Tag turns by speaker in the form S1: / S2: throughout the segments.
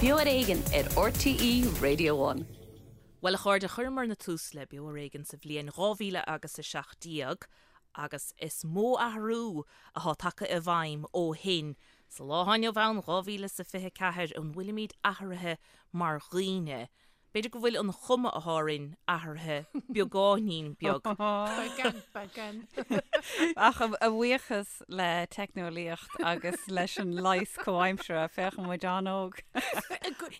S1: Beo ar Éigean ar RTÉ Radio One.
S2: Bhuel, a chairde, chuireamarna tús le Beo ar Éigean sa bhliain 2000 agus 17 agus is mó athrú atá tagtha i bhfeidhm ó shin. Sa lá atá inniu ann, 2024, an bhfuilimid athraithe mar dhaoine? B'fhéidir go bhfuil an chuma atá orainn athraithe beagáinín beag.
S3: Beagán, beagán.
S4: Ach a bhuíochas le teicneolaíocht agus leis an leigheas comhaimseartha, féachann muid an-óg.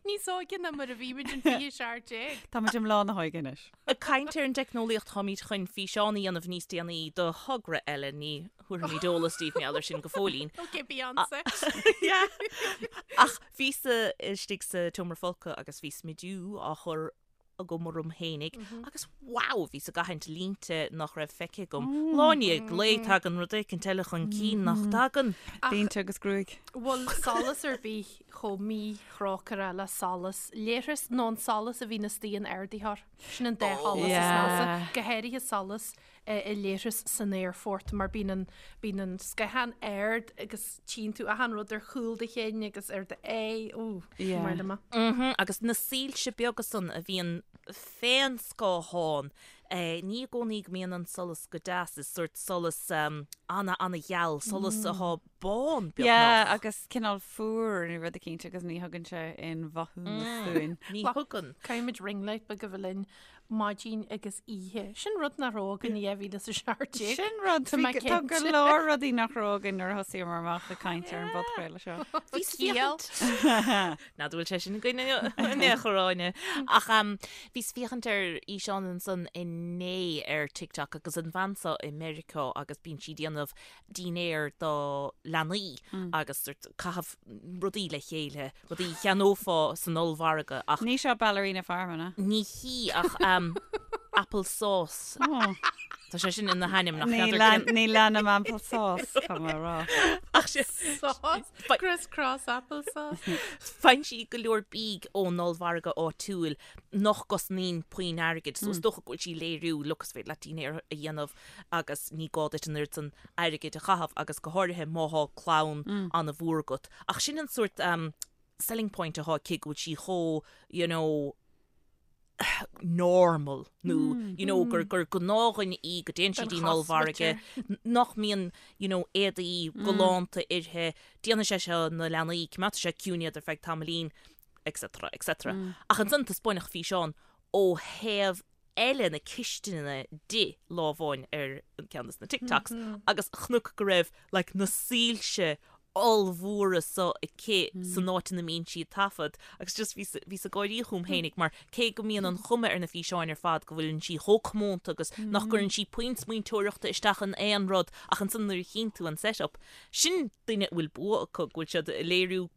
S3: Níos óige ná mar a bhí muid in 2017.
S4: Tá muid i mbláth na hóige anois.
S2: Ag caint ar an dteicneolaíocht, táimid chun físeán a dhéanamh níos déanaí do thogra eile, ní thabharfaimid eolas daoibh mar gheall air sin go fóillín.
S3: Ok, Beyonce.
S2: Yeah. Ach bhíos-sa istigh sa tseomra folctha agus bhí smidiú á chur agam orm fhéinig agus wow, bhíos ag aithint línte nach raibh feicthe agam. Lá i ndiaidh lae tagann rud éicint eile chun cinn nach dtagann.
S4: Línte agus gruaig.
S3: Bhfuil solas ar bith chomh míthrócaireach le solas leithris nó an solas a bhíonn istigh in ardaitheoir. Sin an dá sholas is measa, go háirithe solas i leithreas san aerfort mar bíonn an, bíonn an scáthán ard agus tchíonn tú achan rud ar chúl do chinn agus ar do aghaidh, ó,
S4: Yeah.
S3: mar liom.
S2: Mhm, agus na soilse beaga san a bhíonn fén scáthán, eh, ní i gcónaí go mbíonn an solas go deas, is sórt solas um, ana ana-gheal, solas atá bán
S4: Yeah,
S2: beagnach.
S4: agus cineál fuar nó rud eicínt agus ní thugann sé aon mhaithiúnas dúinn.
S2: Ní thugann.
S3: Caithfimid ring light beag a bheith linn maidin agus oíche. Sin rud nach raibh againn i 2017.
S4: Sin rud,
S3: Tá mé
S4: bhí- tá go
S3: cinnte.
S4: leor rudaí nach raibh againn nuair a thosaíomar amach ag caint ar an bpodchraoladh seo.
S2: Bhíos
S3: Ciall.
S2: féachaint. Ná bhfuil sé sin againn in aon chor Áine. Ach um, bhíos féachaint ar fhíseán ansan inné ar TikTok agus an bhean seo i Meiriceá agus bíonn sí ag déanamh dinnéar do leanaí agus sort caitheamh rudaí le chéile, rudaí a cheannófá san ollmhargadh ach.
S4: Ní seo Ballerina Farm, an ea?
S2: Ní hí ach apple sauce. Tá sé sin ina hainm nach
S4: Ní
S2: n'fheadar cén.
S4: ní leanaim apple sauce, tá mé a rá.
S2: Ach sé.
S3: Sauce? Criss cross apple sauce.
S2: Faigheann sí go leor bídh ón ollmhargadh áitiúil nach gcosnaíonn puinn airgid, so is dócha go bhfuil sí ag léiriú, look is féidir leat dinnéar a dhéanamh agus ní gá duit an oiread san airgid a chaitheamh agus go háirithe má thá clann an-mhór agat. Ach sin an sórt selling point athá aici go bhfuil sí chomh you know normal nó you know gur gur gnáthdhuine í go dtéann sí dtí'n ollmhargadh nach mbíonn you know éadaí galánta uirthi, déanfaidh sé seo na leanaí, coimeádfaidh sé ciúin iad ar feadh tamaillín etc etc. Ach ansan taispeáineadh físeán ó thaobh eile na cistine di lá amháin ar ceann de na TikToks agus chonac go raibh like na soilse ollmhóra so aici san áit ina mbíonn sí ag taifead agus just bhíos bhíos ag gáirí chugam fhéinig mar cé go mbíonn an chuma ar na físeáin ar fad go bhfuileann sí chomh comónta agus nach gcuireann sí puinn smaointeoireachta isteach in aon rud ach ansan nuair a chíonn tú an set-up sin duine a bhfuil bua acu go bhfuil siad ag léiriú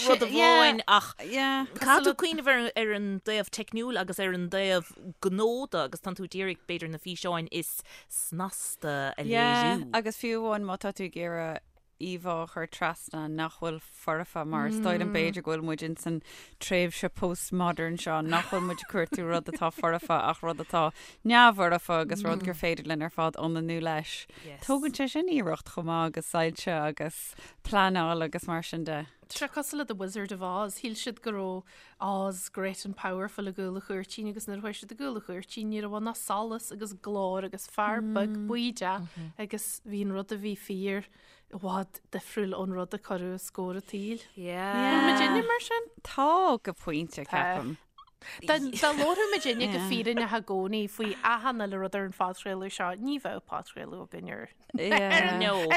S2: rud amháin ach caithfidh tú cuimhneamh ar ar an dtaobh teicniúil agus ar an dtaobh gnó de agus tánn tú ag iarraidh b'fhéidir na físeáin is snasta a léiriú.
S4: Agus fiú amháin má tá tú ag iarraidh íomhá a chur trasna nach bhfuil foirfe mar is dóigh liom b'fhéidir go bhfuil muid ins an tréimhse postmodern seo nach bhfuil muid ag cuartú rud atá foirfe ach rud atá neamhfhoirfe agus rud gur féidir linn ar fad ionannú leis. Tógann sé sin iarracht chomh maith agus soilse agus pleanáil agus mar sin de.
S3: Tá sé cosúil le The Wizard of Oz, shíl siad go raibh Oz great and powerful i gcúl an chúirtín agus nuair a chuaigh siad i gcúl an chúirtín ní raibh ann ach solas agus glór agus fear beag buí agus bhí an rud a bhí fíor i bhfad difriúil ón rud a cuireadh os comhair an tsaoil.
S2: Yeah.
S3: Bhfuil muidinne mar sin?
S4: Tá go pointe, ceapaim.
S3: Dá labhródh muidinne go fírinneach i gcónaí faoi achan uile rud ar an phodchraoladh seo, ní bheadh podchraoladh againn ar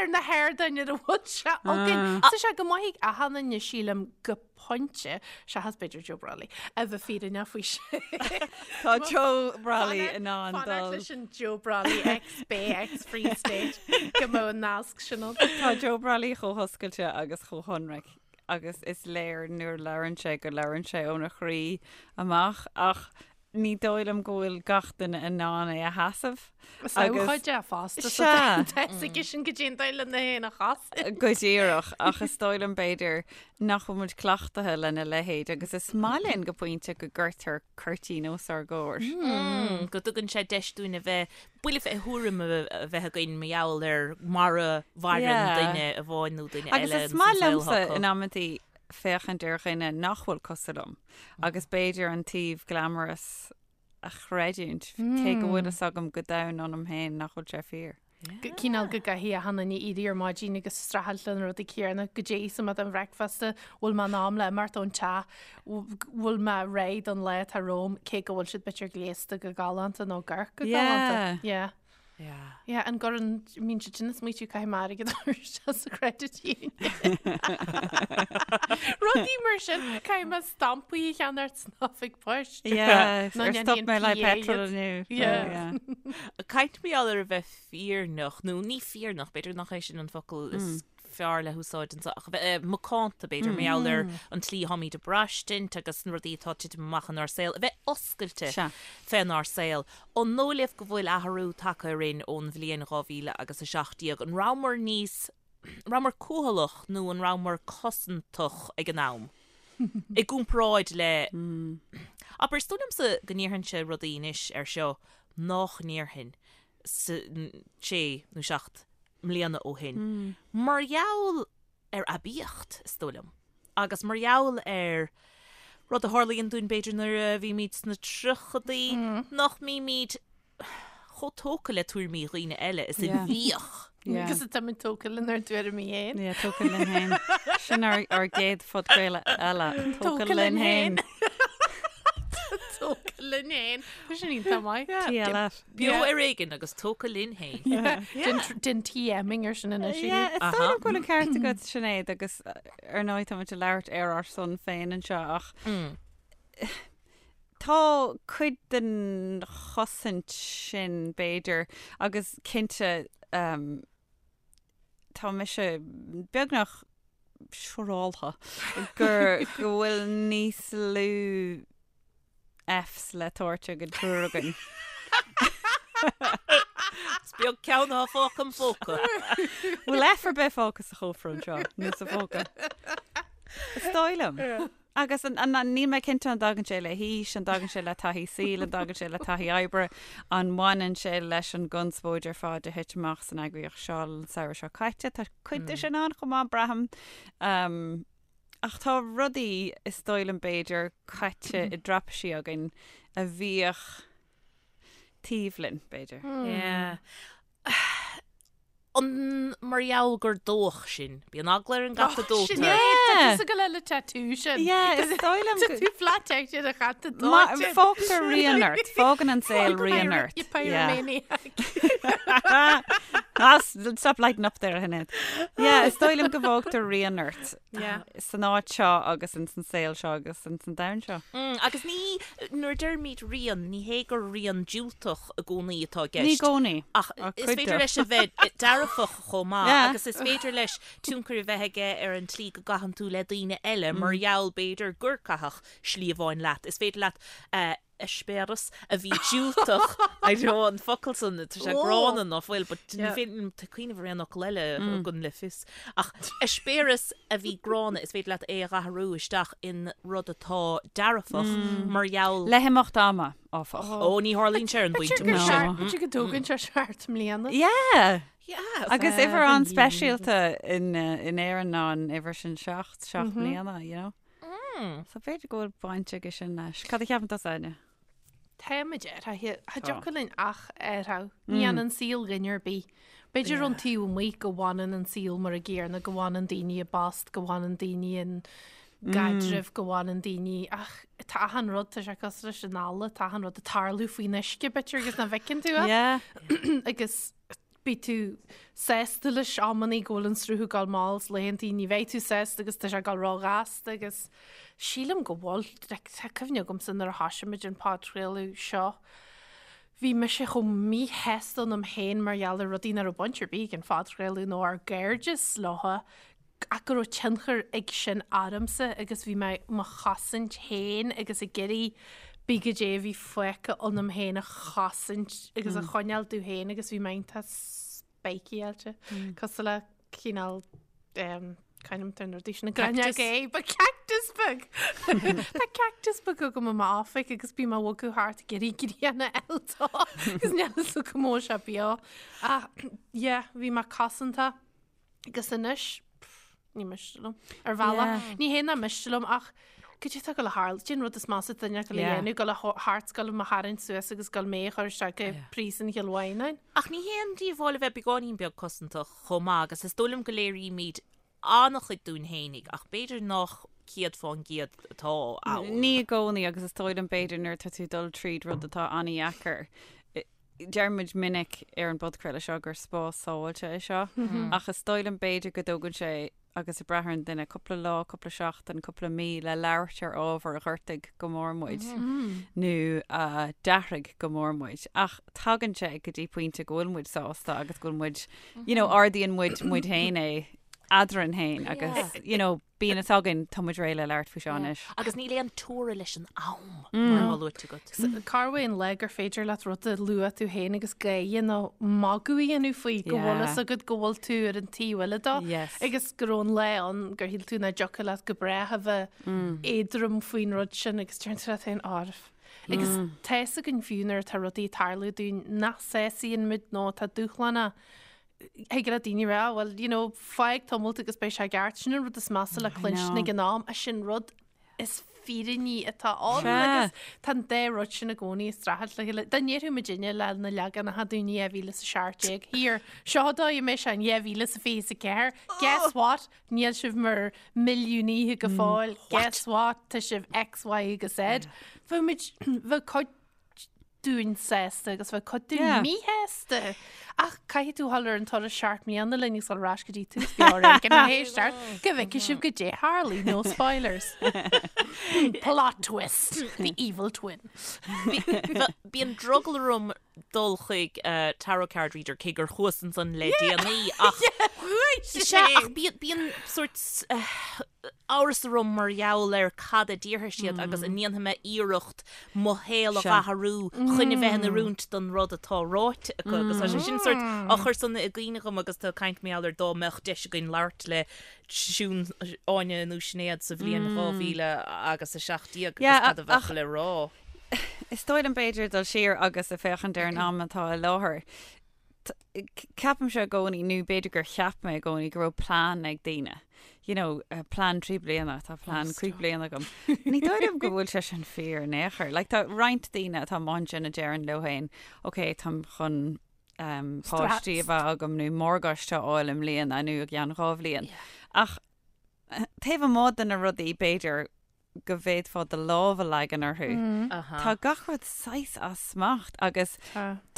S3: ar na hardáin ar a bhfuil sé againn. Tá sé go maith ag achan duine sílim go pointe, seachas b'fhéidir Joe Brolly, a bheith fírinneach faoi sin.
S4: Tá Joe Brolly in ann dul.
S3: Fanacht leis an Joe Brolly ex Bay ex Free State go mbeadh an nasc sin ann.
S4: Tá Joe Brolly chomh hoscailte agus chomh hionraic agus is léir nuair a labhrann sé go labhrann sé óna chroí amach ach ní dóigh liom go bhfuil gach duine in ann é a sheasamh.
S3: Is abhcóide é fosta so
S4: Sea.
S3: tá fhios aige sin goidé an dóigh lena fhéin a chosaint.
S4: Go díreach, ach is dóigh liom b'fhéidir nach bhfuil muid cleachtaithe lena leithéid agus is maith linn go pointe go gcuirtear cuirtín os ár gcomhair.
S2: Go dtugann sé deis dúinn a bheith, buille fé thuairim a bheith againn mar gheall ar mar a mhaireann duine amháin nó duine
S4: Agus
S2: eile
S4: is
S2: ins an
S4: maith
S2: saol
S4: liomsa
S2: acu.
S4: in amantaí. féachaint ar dhuine nach bhfuil cosúil liom agus b'fhéidir an taobh glamorous a chreidiúint, cé go bhfuil fhios agam go domhain ionam féin nach bhfuil sé fíor.
S3: Cineál go gcaithfidh achan duine éirí ar maidin agus streachailt le na rudaí céanna, goidé íosfaidh mé don bhreicfeasta, bhfuil mé in am le imeacht ón teach, bhfuil mé réidh don lá atá romham, cé go bhfuil siad b'fhéidir gléasta go galánta nó ag amharc go galánta. Yeah.
S2: Yeah.
S3: Yeah, an gcuireann, mbíonn siad sin ag smaoitiú caithfidh mé airgead a chur isteach sa credit union. Rudaí mar sin, caithfidh mé stampaí a cheannacht san oifig poist.
S4: Yeah,
S3: Nó
S4: ar stop
S3: ndéanfaidh an
S4: mé le
S3: PA
S4: petrol
S3: iad.
S4: inniu.
S3: Yeah.
S4: Yeah.
S2: Caint mar gheall ar a bheith fírinneach, nó ní fírinneach, b'fhéidir nach é sin an focal is fearr le húsáid anseo, ach a bheith macánta, b'fhéidir, mar gheall ar an tslí atáimid ag braistint agus na rudaí atá ag titim amach inár saol, a bheith oscailte fénár saol. An dóigh libh go bhfuil athrú tagtha orainn ón bhliain 2000 agus 17? An rabhamar níos, an rabhamar cúthaileach nó an rabhamar cosantach ag an am? I gcomparáid le, abair, is dóigh liomsa go ndéarfainnse rudaí anois air seo nach ndéarfainn sé nó 7 mbliana ó shin, mar gheall ar aibíocht, is dóigh liom, agus mar gheall ar rud a tharlaíonn dúinn b'fhéidir nuair a bhímid sna tríochadaí, nach mbímid chomh tógtha le tuairimí dhaoine eile is a bhíodh.
S3: Agus táimid tógtha lenár dtuairimí
S4: féin. Yeah, tógtha linn féin. Sin ár ár gcéad phodchraoladh eile. Tógtha linn féin.
S3: Tógtha linn féin. Tá sin iontach maith.
S4: TLF.
S2: Beo ar éigean agus tógtha linn féin.
S3: Den TMing ar sin anois.
S4: Yeah, is dóigh liom go bhfuil an ceart agat Sinéad agus ar ndóigh táimid ag labhairt ar ár son féin anseo ach tá cuid den chosaint sin b'fhéidir agus cinnte tá mise beagnach siúráltha gur go bhfuil níos lú Fs le tabhairt ag an triúr againn.
S2: Is beag ceann atá fágtha im phóca.
S4: Bhfuil F ar bith fágtha sa chófra anseo nó sa phóca? Is dóigh liom. Agus níl mé cinnte an dtagann sé le haois, an dtagann sé le taithí saoil, an dtagann sé le taithí oibre, an mbaineann sé leis an gconspóid ar fad a thit amach san eagraíocht seo an samhradh seo caite. Tá cuid de sin ann chomh maith, braithim. Ach tá rudaí, is dóigh liom b'fhéidir, caite i dtraipisí againn a bhíodh taobh linn, b'fhéidir.
S2: Yeah. An mar gheall gur dódh sinn. Bíonn eagla ar an gcat a dóitear.
S3: Sin é, tá tusa ag gabháil le tattoo sin.
S4: Yeah, is dóigh liom
S3: Tá tú flat out ar a chat a dóite.
S4: Fágtar rian ort, fágann an saol rian ort.
S3: You pyromaniac.
S4: Ah, stop lighting up there, Sinéad. Yeah, is dóigh liom go bhfágtar rian ort.
S3: Yeah.
S4: San áit seo agus ins an saol seo agus ins an domhan seo.
S2: Mm, agus ní, nuair a deirimid rian, ní hé gur rian diúltach i gcónaí atá i gceist.
S4: Ní i gcónaí.
S2: Ach is féidir leis a bheith dearfach chomh maith
S4: Yeah.
S2: agus is féidir leis tionchar a bheith aige ar an tslí go gcaitheann tú le daoine eile mar gheall b'fhéidir gur caitheadh slí amháin leat. Is féidir leat eh, eispéireas a bhí diúltach, I know an focal san, tá sé gránna ná fuil, but ní féidir liom cuimhneamh ar aon fhocal eile a thugann le fios. Ach eispéireas a bhí gránna, is féidir leat é a athrú isteach in rud atá dearfach mar gheall.
S4: Le himeacht ama, áfach.
S2: Ó, ní tharlaíonn sé ar an bpointe
S3: B'fhéidir
S2: sin.
S3: b'fhéidir go dtógann sé seacht mbliana.
S4: Yeah!
S2: Yeah.
S4: Agus uimhir an-speisialta in Éirinn ná an uimhir sin seacht, seacht mbliana, you know. So b'fhéidir go bhfuil baint aige sin leis. Cad a cheapann tusa, Áine?
S3: Táimid athraithe. Cha dtiocfadh linn ach athrú. Ní fhanann saol duine ar bith. B'fhéidir ón taobh amuigh go bhfanann an saol mar an gcéanna, go bhfanann daoine i bpost, go bhfanann daoine in gcaidrimh, go bhfanann daoine ach tá achan rud, tá sé cosúil leis an eala, tá achan rud ag tarlú faoin uisce b'fhéidir agus nach bhfeiceann tú é.
S4: Yeah.
S3: Agus Beidh tú sásta leis amannaí go bhfuil an sruth ag dul mall is laethantaí ní bheidh tú sásta agus tá sé ag dul róghasta agus sílim go bhfuil, like, tá cuimhne agamsa nuair a thoisigh muid an podchraoladh seo, bhí mise chomh míshásta ionam féin mar gheall ar rudaí nach raibh baint ar bith ag an phodchraoladh nó ár gcairdeas leo ach go raibh tionchar ag sin ormsa agus bhí mé mo chosaint féin agus ag iarraidh pé goidé a bhí fágtha ionam féin a chosaint agus a choinneáil domh féin agus bhí mé iontach speiceáilte cosúil le cineál c'ainm atá ar na rudaí sin
S2: Cactus.
S3: Ba cactus beag! Tá cactus beag agam i m'oifig agus bím á bhogadh thart ag iarraidh grian a fháil dó agus níl fhios agam an bhfuil sé beo. Ach yeah, bhí mé cosanta. Agus anois, pff. Ní miste liom. Ar bhealach, ní hé nach miste liom ach cad é atá ag gabháil a tharlú, cad é an rud is measa duine ag gabháil a dhéanamh, gabháil a thart gabháil mo tharraingt suas agus gabháil mé a chur isteach i bpríosún Chill Mhaighneáin.
S2: Ach ní hé an díobháil a bheith beagáinín beag cosantach chomh maith agus is dóigh liom go léirímid an-chuid dúinn fhéinig ach b'fhéidir nach 100% atá
S4: ann. Ní i gcónaí agus is dóigh liom b'fhéidir nuair atá tú ag dul tríd rud atá an-dheacair, deir muid minic ar an bpodchraoladh seo gur spás sábháilte é seo, ach is dóigh liom b'fhéidir go dtógann sé, agus ag brath ar an duine, cúpla lá, cúpla seachtain, cúpla mí le labhairt ar ábhar a ghortaigh go mór muid nó a d'athraigh go mór muid. Ach tagann sé go dtí pointe go bhfuil muid sásta agus go bhfuil muid, you know, ardaíonn muid muid féin é eadrainn féin agus, you know, Bíonn fhios againn, tá muid réidh le labhairt faoi seo anois.
S2: Agus níl aon teora leis an am, mar atá luaite agat.
S3: Cá bhfuil an lá gur féidir leat rud a lua tú féin agus gáire nó magadh a dhéanamh faoi go bhfuil fhios agat go bhfuil tú ar an taobh eile dó agus go raibh an lá ann gur shíl tú nach dtiocfadh leat go brách a bheith éadrom faoin rud sin agus deireann tú leat féin árbh. Agus tá fhios againn fiú nuair atá rudaí ag tarlú dúinn nach sásaíonn muid nó atá dúshlánach Thig le daoine rá, well, you know, fág tamalt agus beidh sé i gceart. Sin an rud is measa le cluinstin ag an am, ach sin rud is fírinní atá ann agus tá an dá rud sin i gcónaí ag streachailt le chéile. Dá ndéarfadh muidinne le na leaganacha dúinn i 2017, here, seo an dóigh a mbeidh sé in 2024, guess what, níl sibh mar milliúnaithe go fóill, guess what, tá sibh X, Y agus Z. Bheadh muid, bheadh cuid dúinn sásta agus bheadh cuid dúinn Yeah. míshásta. Ach caithfidh tú dhul ar an turas 7 mbliana linn agus dul ar ais go dtí tús Beo Ar Éigean a éisteacht go bhfeicfidh sibh goidé a tharlaigh, no spoilers. Plot twist, the evil twin.
S2: Bíonn drogall orm dul chuig tarot card reader cé gur chuas ansan le déanaí ach Sea, ach bíonn sórt amhras orm mar gheall ar cad a déarfaidh siad agus an ndéanfaidh mé iarracht mo shaol a athrú chun a bheith in oiriúint don rud atá ráite acu agus tá sé sin sórt á chur san i gcuimhne agam agus tú ag caint mar gheall ar dá mbeadh deis againn labhairt le Siún, Áine nó Sinéad sa bhliain 2017 agus cad a bheadh le rá.
S4: Is dóigh liom b'fhéidir dul siar agus ag féachaint ar an am atá i láthair. Ceapaimse i gcónaí, nó b'fhéidir gur cheap mé i gcónaí go raibh plean ag daoine. You know, plean 3 bliana, tá plean 5 bliana agam. Ní dóigh liom go bhfuil sé sin fíor in aon chor. Like, tá roinnt daoine atá amuigh ansin a deireann leo féin, ok, táim chun um, páistí a bheith agam nó morgáiste a fháil i mbliana nó i gceann 2 bhliain. Ach taobh amuigh de na rudaí b'fhéidir go bhféadfá do lámh a leagan orthu. Tá gach rud saghas as smacht agus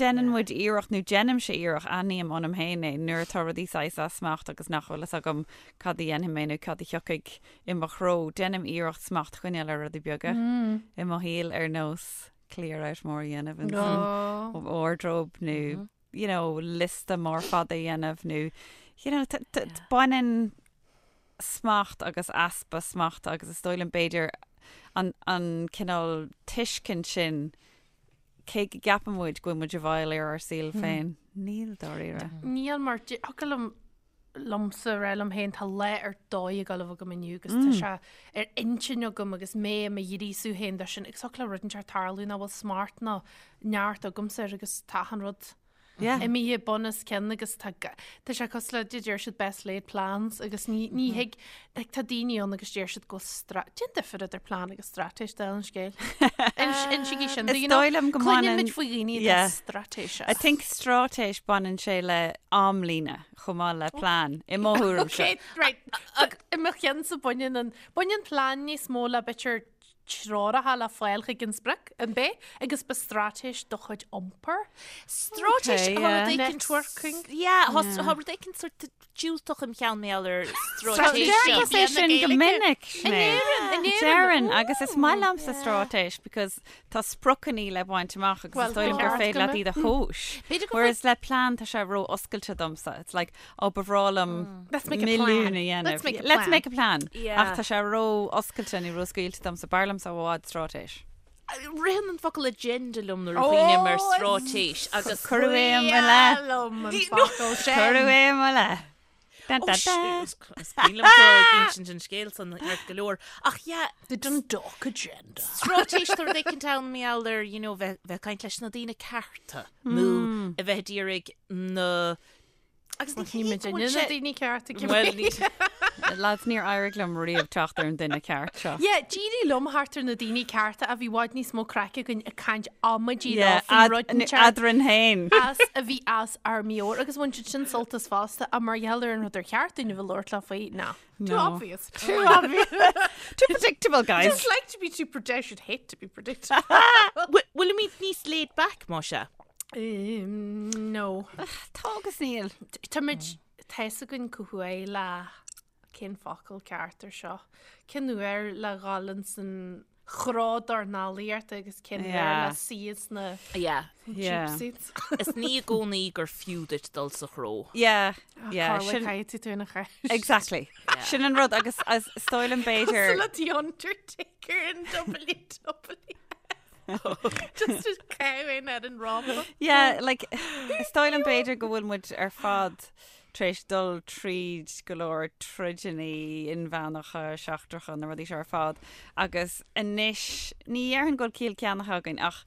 S4: déanann muid iarracht, nó déanaimse iarracht, aithním ionam féin é, nuair atá rudaí saghas as smacht agus nach bhfuil fhios agam cad a dhéanfaidh mé nó cad a thiocfaidh i mo threo, déanaim iarracht smacht a choinneáil ar rudaí beaga i mo shaol ar nós clear out mór a dhéanamh in san wardrobe nó you know, liosta mór fada a dhéanamh nó you know, baineann smacht agus easpa smachta agus is dóigh liom b'fhéidir an, an cineál tuiscint sin cé go gceapann muid go bhfuil muid i bhfeighil ar ár saol féin, níl dáiríre.
S3: Níl mar thiocfadh liom liomsa rá liom féin tá lá ar dóigh ag gabháil a bheith agam inniu agus tá sé ar intinn agam agus mé i mo ghríosú féin dó sin agus thiocfadh le rud inteacht tarlú nach bhfuil smacht ná neart agamsa air agus tá achan rud
S4: Yeah.
S3: imithe bun os cionn agus tá ga- tá sé cosúil le deir siad best laid plans agus ní ní thig like, tá daoine ann agus deir siad go bhfuil stra Cén difear idir plean agus straitéis dála an scéil. Insígí sin
S4: Is dóigh liom go
S3: Cluineann
S4: mbaineann-
S3: muid faoi dhaoine atá
S4: Yeah.
S3: straitéiseach.
S4: I think straitéis baineann sé le amlíne chomh maith le plean i mo thuairimse.
S3: Okay, right. I mo cheannsa baineann an baineann plean níos mó le b'fhéidir treoracha le fáil chuig an sprioc, an b'é? Agus ba straitéis do chuid iompair.
S2: Straitéis
S4: Okay,
S2: tá
S4: yeah.
S2: rud éicint
S3: Networking.
S2: Yeah, tá tá rud éicint sort diúltach im cheann mar gheall ar straitéis.
S4: Deir tusa é sin go minic,
S3: In
S4: Sinéad.
S3: Éirinn, in Éirinn.
S4: Deireann, agus is maith liomsa straitéis because tá spriocanna le baint amach agus
S3: Well,
S4: is dóigh liom gur
S3: ceart
S4: féidir
S3: go
S4: leat
S3: mbeadh.
S4: iad a thomhas.
S2: B'fhéidir go
S4: Whereas le plean tá sé ró-oscailte domsa. It's like, Ó, ba bhreá liom
S3: Let's make a
S4: milliún
S3: plan.
S4: a dhéanamh.
S3: Let's make a
S4: Let's
S3: plan.
S4: make a plan.
S2: Yeah.
S4: Ach tá sé ró-oscailte nó ró-scaoilte domsa. B'fhearr liomsa i bhfad straitéis.
S2: Ritheann an focal agenda liom nuair a chuimhním ar straitéis agus
S4: Cuireadh é i mo leith.
S3: liom an focal sin.
S4: Cuireadh é i mo leith. Dun,
S2: Ó,
S4: dun, dun.
S2: is cuimhin liom tú ag insint an scéil san ceart go leor. Ach yeah,
S3: The Dundalk agenda.
S2: straitéis tá rud éicint ann mar gheall ar, you know, bheith bheith ag caint leis na daoine cearta nó a bheith ag iarraidh na Agus ní
S3: Ní
S2: hé go
S3: muidinne
S2: bhfuil
S3: na
S2: sé
S3: daoine cearta
S2: Well, ní.
S4: Lads, níor éirigh liom riamh teacht ar an duine ceart seo.
S3: Yeah, d'éirigh liom theacht ar na daoine cearta a bhí i bhfad níos mó craic againn ag caint amaidí leo faoi rud inteacht
S4: Eadrainn féin.
S3: as a bhí as ár meabhair agus bhain siad sin sult as fosta ach mar gheall ar an rud ar cheart dúinn a bheith labhairt leo faoi, ná. Too
S4: No.
S3: obvious.
S4: Too obvious. Too predictable, guys.
S3: Just like to be too predict- I should hate to be predictable.
S2: Bhfuilimid níos laid back, más ea?
S3: Um, no.
S4: Tá agus níl.
S3: Táimid tá fhios againn cá huair le cén focal ceart ar seo. Cén uair le dhul ins an chró dornálaíochta agus cén uair
S4: Yeah.
S3: le suí sna
S2: Yeah.
S4: Yeah.
S3: cheap seats.
S2: Is ní i gcónaí gur fiú duit dul sa chró.
S4: Yeah, yeah.
S3: Carla
S4: Sin,
S3: caithfidh tú ina cheist.
S4: exactly. Sin an rud agus as is dóigh liom b'fhéidir.
S3: Le The Undertaker in WWE. Just a cow in ar an rámpa.
S4: Yeah, like, is dóigh liom b'fhéidir go bhfuil muid ar fad tar éis dul tríd go leor troideanna inmheánacha, seachtracha, na rudaí seo ar fad. Agus anois, ní dhéarfainn go bhfuil ciall ceannaithe againn ach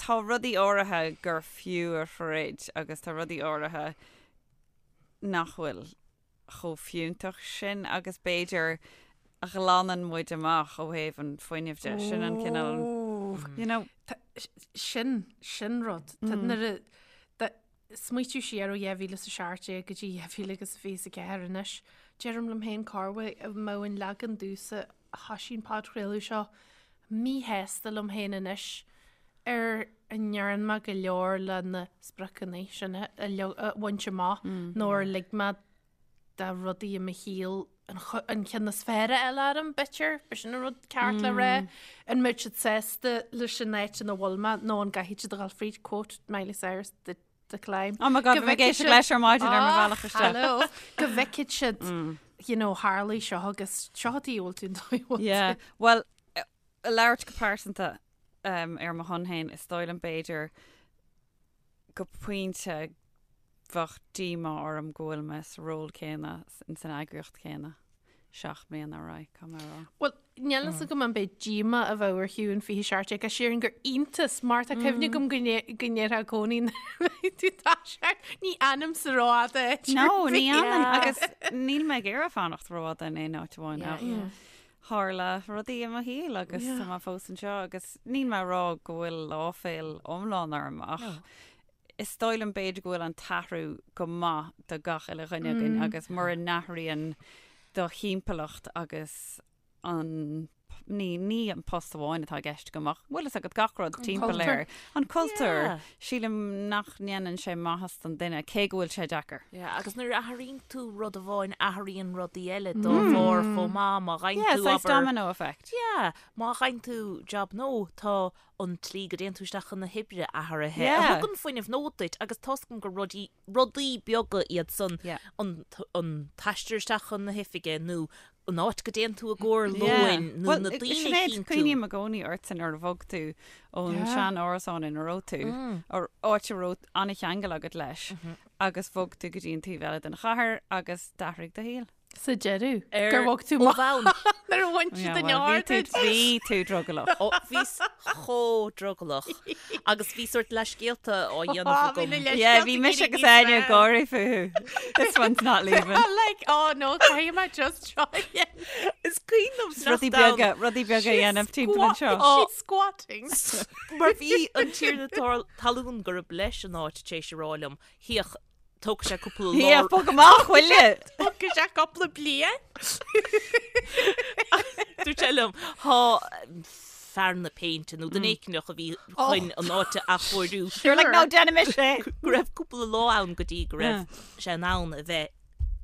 S4: tá rudaí áirithe gur fiú a throid agus tá rudaí áirithe nach bhfuil chomh fiúntach sin agus b'fhéidir a ghlanann muid amach ó thaobh an fuinnimh de. Sin an cineál, you know.
S3: Sin, sin rud. Tá nuair a smaoitiú siar ó 2017 go dtí 2024 anois, deirim liom féin cá bhfios an mbeadh an leagan domhsa a thoisigh an podchraoladh seo míshásta liom féin anois ar a ndearna mé go leor le na spriocanna sin a bhaint amach nó ar lig mé do rudaí i mo shaol an ceann is fearr a fháil orm, b'fhéidir, b'shin an rud ceart le rá. An mbeadh siad sásta leis an áit ina bhfuil mé nó an gcaithfidh siad a dhul fríd, quote Miley Cyrus, the, the climb.
S4: Oh my God, bhí mé ag éisteacht leis ar maidin ar mo bhealach isteach.
S3: Hello. Go bhfeicfidh siad, you know, tharlaigh seo agus seo a bhfuil tú an dóigh a bhfuil
S4: Yeah, well, labhairt go pearsanta ar mo shon féin, is dóigh liom b'fhéidir go pointe bheadh díomá orm go bhfuil mé sa ról céanna in san eagraíocht chéanna 7 mbliana ar aghaidh, caithfidh mé a rá.
S3: Bhuel, níl fhios agam an b'é díomá a bheadh ar Shiún 27 ach sílim gur iontas mar tá cuimhne agam go ndéarfá i gcónaí tú tá sé ní fhanaimse rófhada áit
S4: No, ní fhanann agus níl mé ag iarraidh fanacht rófhada in aon áit amháin ach tharla rudaí i mo shaol agus tá mé fós anseo agus níl mé ag rá go bhfuil áiféil iomlán orm ach is dóigh liom b'fhéidir go bhfuil an t-athrú go maith do gach uile dhuine againn agus mura n-athraíonn do thimpeallacht agus an ní, ní an post amháin atá i gceist agam ach bhfuil fhios agat gach rud timpeall air. An cultúr. Yeah. Sílim nach ndéanann sé maitheas don duine cé go bhfuil sé deacair.
S2: Yeah, agus nuair a athraíonn tú rud amháin athraíonn rudaí eile dá bharr chomh maith má fhaigheann
S4: Yeah,
S2: tú
S4: saghas
S2: abair
S4: domino effect.
S2: Yeah, má fhaigheann tú job nua tá an tslí go dtéann tú isteach chun na hoibre athraithe
S4: Yeah.
S2: a thugann fuinneamh nua duit agus tá's agam gur rudaí rudaí beaga iad san
S4: Yeah.
S2: an an t-aistear isteach chun na hoifige nó an áit go dtéann tú i gcomhair
S4: Yeah.
S2: lóin nó
S4: Well,
S2: na daoine a
S4: Sinéad,
S2: chíonn tú.
S4: cuimhním i gcónaí ortsa nuair a bhog tú ón
S3: Yeah.
S4: sean árasán ina raibh tú, ar áit a raibh an-cheangal agat leis, agus bhog tú go dtí an taobh eile den chathair agus d'athraigh do shaol.
S3: Sa deireadh,
S2: Ar
S3: gur bhog tú
S2: ó
S3: amach
S2: bhonn.
S3: nuair a bhain siad an
S4: bhí tú,
S3: aird.
S4: bhí tú drogallach.
S2: Ó, bhíos chomh drogallach agus bhí sórt leithscéalta á dhéanamh
S3: Á, bhí
S2: agam.
S3: na leithscéalta
S4: Yeah, bhí mise agus Áine ag gáirí fúthu. This one's not leaving.
S3: Like, oh no, caithfidh mé just seo a dhéanamh.
S2: Is cuimhin liom
S4: Rudaí
S2: sneachta ann.
S4: beaga, rudaí beaga a dhéanamh timpeall anseo.
S3: She's squatting.
S2: Mar bhí an tiarna talún gurb leis an áit tar éis a rá liom, Féach, Tógfaidh sé cúpla lá.
S4: Yeah, bog amach, will you?
S3: Tógfaidh sé cúpla bliain.
S2: Dúirt sé liom, thá fear na péinte nó duine éicneach a bhí chun an áit a athchóiriú.
S4: You're like, no, déanaimis é.
S2: Go raibh cúpla lá ann go dtí go raibh sé in ann a bheith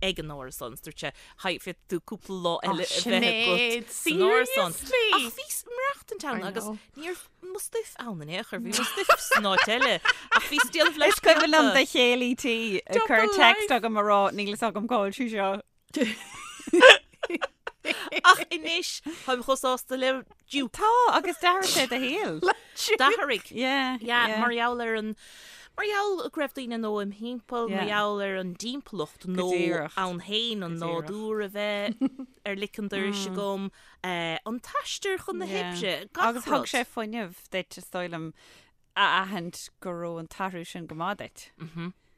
S2: ag an árasán. Dúirt sé, Féadfaidh tú cúpla lá eile a bheith agat san árasán.
S3: Seriously?
S2: Ach bhíos ag maireachtaint ann
S3: I
S2: agus
S3: know.
S2: ní raibh mo stuif ann in aon chor, bhí mo stuif san áit eile. Ach bhíos ag déanamh
S4: Is cuimhin liom
S2: leithscéalta.
S4: do chéile tí ag cur
S3: Double
S4: text
S3: life.
S4: agam a rá níl fhios agam cá bhfuil sí seo.
S2: Ach anois, táim chomh sásta le Duke.
S4: Tá, agus d'athraigh sé do shaol.
S2: D'athraigh.
S4: Yeah,
S2: Yeah,
S4: yeah.
S2: mar gheall ar an mar gheall go raibh daoine nua im thimpeall, mar
S4: Yeah.
S2: gheall ar an dtimpeallacht nó
S4: díreach.
S2: ann féin an
S4: Go díreach.
S2: nádúr a bheith ar lic an dorais agam, eh, an t-aistear chun na
S4: Yeah.
S2: hoibre, gach
S4: Agus thug
S2: rud.
S4: sé fuinneamh duit, is dóigh liom, a aithint go raibh an t-athrú sin go maith duit.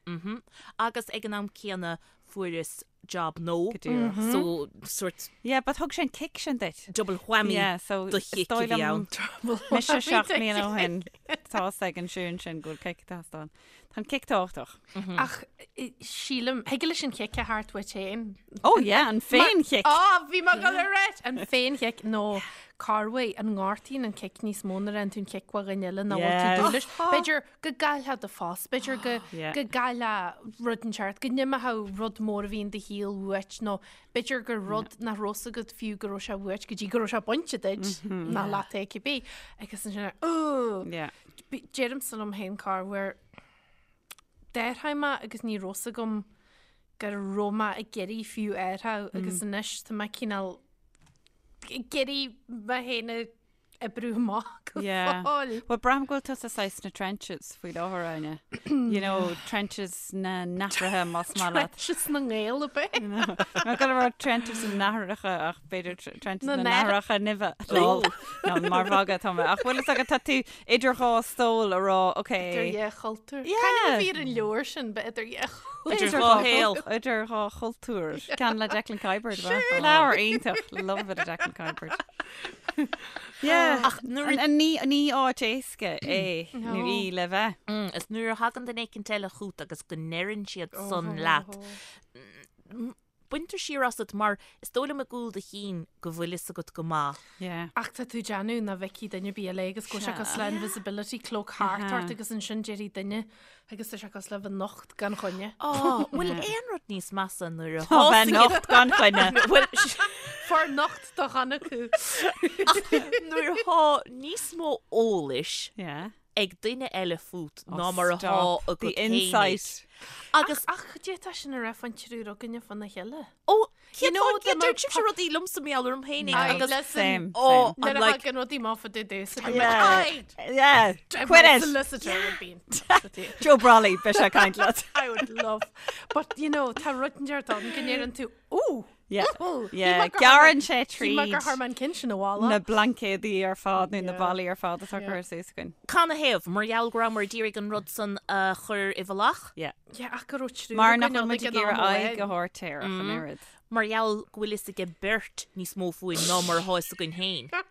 S2: Mhm. Agus ag an am céanna fuaireas. job no.
S4: Go díreach.
S2: So sort
S4: Yeah, but thug sé an kick sin duit.
S2: double whammy
S4: Yeah, so
S2: do
S4: is
S2: chick a
S4: dóigh
S2: bhí
S4: liom
S2: ann.
S4: Mise 7 mbliana ó shin tá fhios ag an Siún sin go bhfuil kick ag teastáil. Tá an kick tábhachtach.
S3: Ach sílim, thig leis an chic a theacht uait féin.
S4: Oh yeah, an féin-chic.
S3: Á, bhí mé ag dul a ráit! An féin-chic nó corruair an ngortaíonn an cic níos mó nuair a fhaigheann tú an cic ó dhuine eile ná bhfuil tú
S4: Yes.
S3: dúil leis. B'fhéidir go gcaillfeá do phost, b'fhéidir go
S4: Yeah.
S3: go gcaillfeá rud inteacht, go n-imeodh rud mór a bhí in do shaol uait nó b'fhéidir gur rud nach raibh fhios agat fiú go raibh sé uait go dtí go raibh sé bainte duit ná leat é cibé. Agus ansin, oh!
S4: Yeah.
S3: Deirimse liom féin corruair d'athraigh mé agus ní raibh fhios agam go raibh mé ag iarraidh fiú athrú agus anois tá mé cineál ag iarraidh mé féin a oibriú amach go
S4: Yeah.
S3: fóill.
S4: Well, braithim go bhfuil tusa saghas sna trenches faoi láthair, Áine. You know, trenches na n-athruithe más maith leat.
S3: Trenches na nGael ab ea?
S4: Má go raibh trenches na n-athracha ach b'fhéidir trenches
S3: Na
S4: na n-athracha nimhe. Lol. No, mar mhagadh atá mé. Ach bhfuil fhios agat tá tú idir dhá stól a rá, ok.
S3: Idir dhá chultúr.
S4: Yeah.
S3: Cén ainm a bhí ar an leabhar sin, ba idir dhá chultúr.
S2: Idir dhá shaol.
S4: Idir dhá chultúr. Ceann le Declan Kiberd. Sure. Leabhar iontach. Love a bit of Declan Kiberd. Yeah.
S2: Ach nuair a-
S4: An- Ní ní áit éasca é nó
S3: No.
S4: í le bheith.
S2: Is nuair a thagann duine éicint eile chugat agus go ndeireann siad san leat, baintear siar asat mar is dóigh liom i gcúl do chinn go bhfuil fhios agat go maith.
S4: Yeah.
S3: Ach tá tú ag déanamh nach bhfeicfidh duine ar bith eile agus go bhfuil sé cosúil le invisibility cloak thart ort agus ansin déarfaidh duine agus tá sé cosúil le bheith nocht gan choinne.
S2: Á, bhfuil aon rud níos measa nuair a
S4: Tá bheith
S2: thosaíonn
S4: nocht gan choinne.
S2: Bhuel,
S3: Far nocht do chan acu.
S2: nuair atá níos mó eolais
S4: Yeah.
S2: ag duine eile fút
S4: Oh,
S2: ná mar atá
S4: stop.
S2: agat
S4: The
S2: féinig.
S4: insight.
S2: Agus
S3: Ach d'fhéadfá sin a rá faoin triúr againne fána chéile.
S2: ó
S3: You know,
S2: cén fáth
S3: the
S2: deir sibhse rudaí liomsa mar gheall orm féinig
S3: Aye,
S2: agus
S3: listen.
S4: Same.
S2: oh,
S3: Nuair
S2: I'm
S3: a
S2: like
S3: thagann rudaí amach fá dtaobh domhsa,
S4: Yeah. Yeah. Quit
S3: My
S4: it.
S3: solicitor would be in touch with you.
S4: Joe Brolly, beidh sé ag caint leat.
S3: I would love. But, you know, tá rud inteacht ann go ndeireann tú, ooh,
S4: Yeah.
S3: ooh,
S4: Yeah. Gearrann sé
S3: Shíl mé gur
S4: tríd
S3: chuir mé an ceann sin abhaile.
S4: na blaincéadaí ar fad nó na
S3: Yeah.
S4: ballaí ar fad atá
S3: Yeah.
S4: curtha suas againn.
S2: Canathaobh, mar gheall go rabhamar ag iarraidh an rud san a chur i bhfolach?
S4: Yeah.
S3: Yeah, ach go raibh triúr
S4: Mar nach
S3: againn
S4: bhfuil
S3: ann
S4: muid
S3: ag
S4: ag
S3: an am
S4: iarraidh aghaidh
S3: amháin.
S4: a thabhairt air ach an oiread.
S2: Mar gheall go bhfuil fhios ag beirt níos mó fúinn ná mar atá fhios againn féin.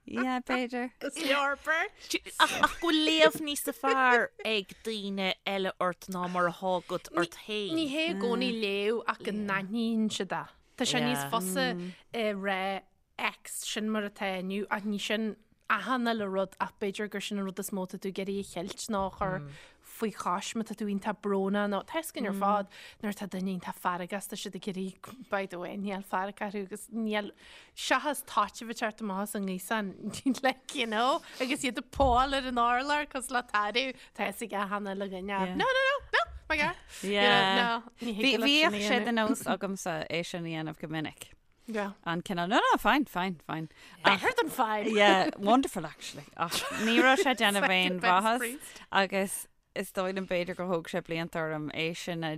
S4: Yeah, b'fhéidir.
S3: Is leor beirt.
S2: Ach ach go bhfuil léamh níos fearr ag daoine eile ort ná mar atá agat ort féin.
S3: Ní hé i gcónaí léamh ach go n-aithníonn siad é. Tá sé níos
S2: Yeah.
S3: fusa a rá X sin mar atá inniu ach ní sin achan uile rud ach b'fhéidir gur sin an rud is mó atá tú ag iarraidh a cheilt nó a chur faoi chois má tá tú iontach brónach nó tá fhios againn ar fad nuair atá duine iontach feargach tá siad ag iarraidh by the way níl fearg orthu agus níl seachas taitneamh ag teacht amach as an ngaosán like you know agus iad ag púáil ar an urlár cosúil le tarbh tá fhios ag achan uile dhuine
S4: Yeah.
S3: no no no no my God
S4: Yeah.
S3: no ní
S4: Bhí
S3: thig leat sin a
S4: bhíodh sé
S3: dhéanamh.
S4: de nós agamsa é sin a dhéanamh go minic.
S3: Yeah.
S4: An cineál no no fine fine fine.
S3: Better than fine.
S4: Yeah, wonderful actually. Ach ní raibh sé ag déanamh aon
S3: Second best
S4: mhaitheas
S3: priest.
S4: agus is dóigh liom b'fhéidir gur thóg sé blianta orm é sin a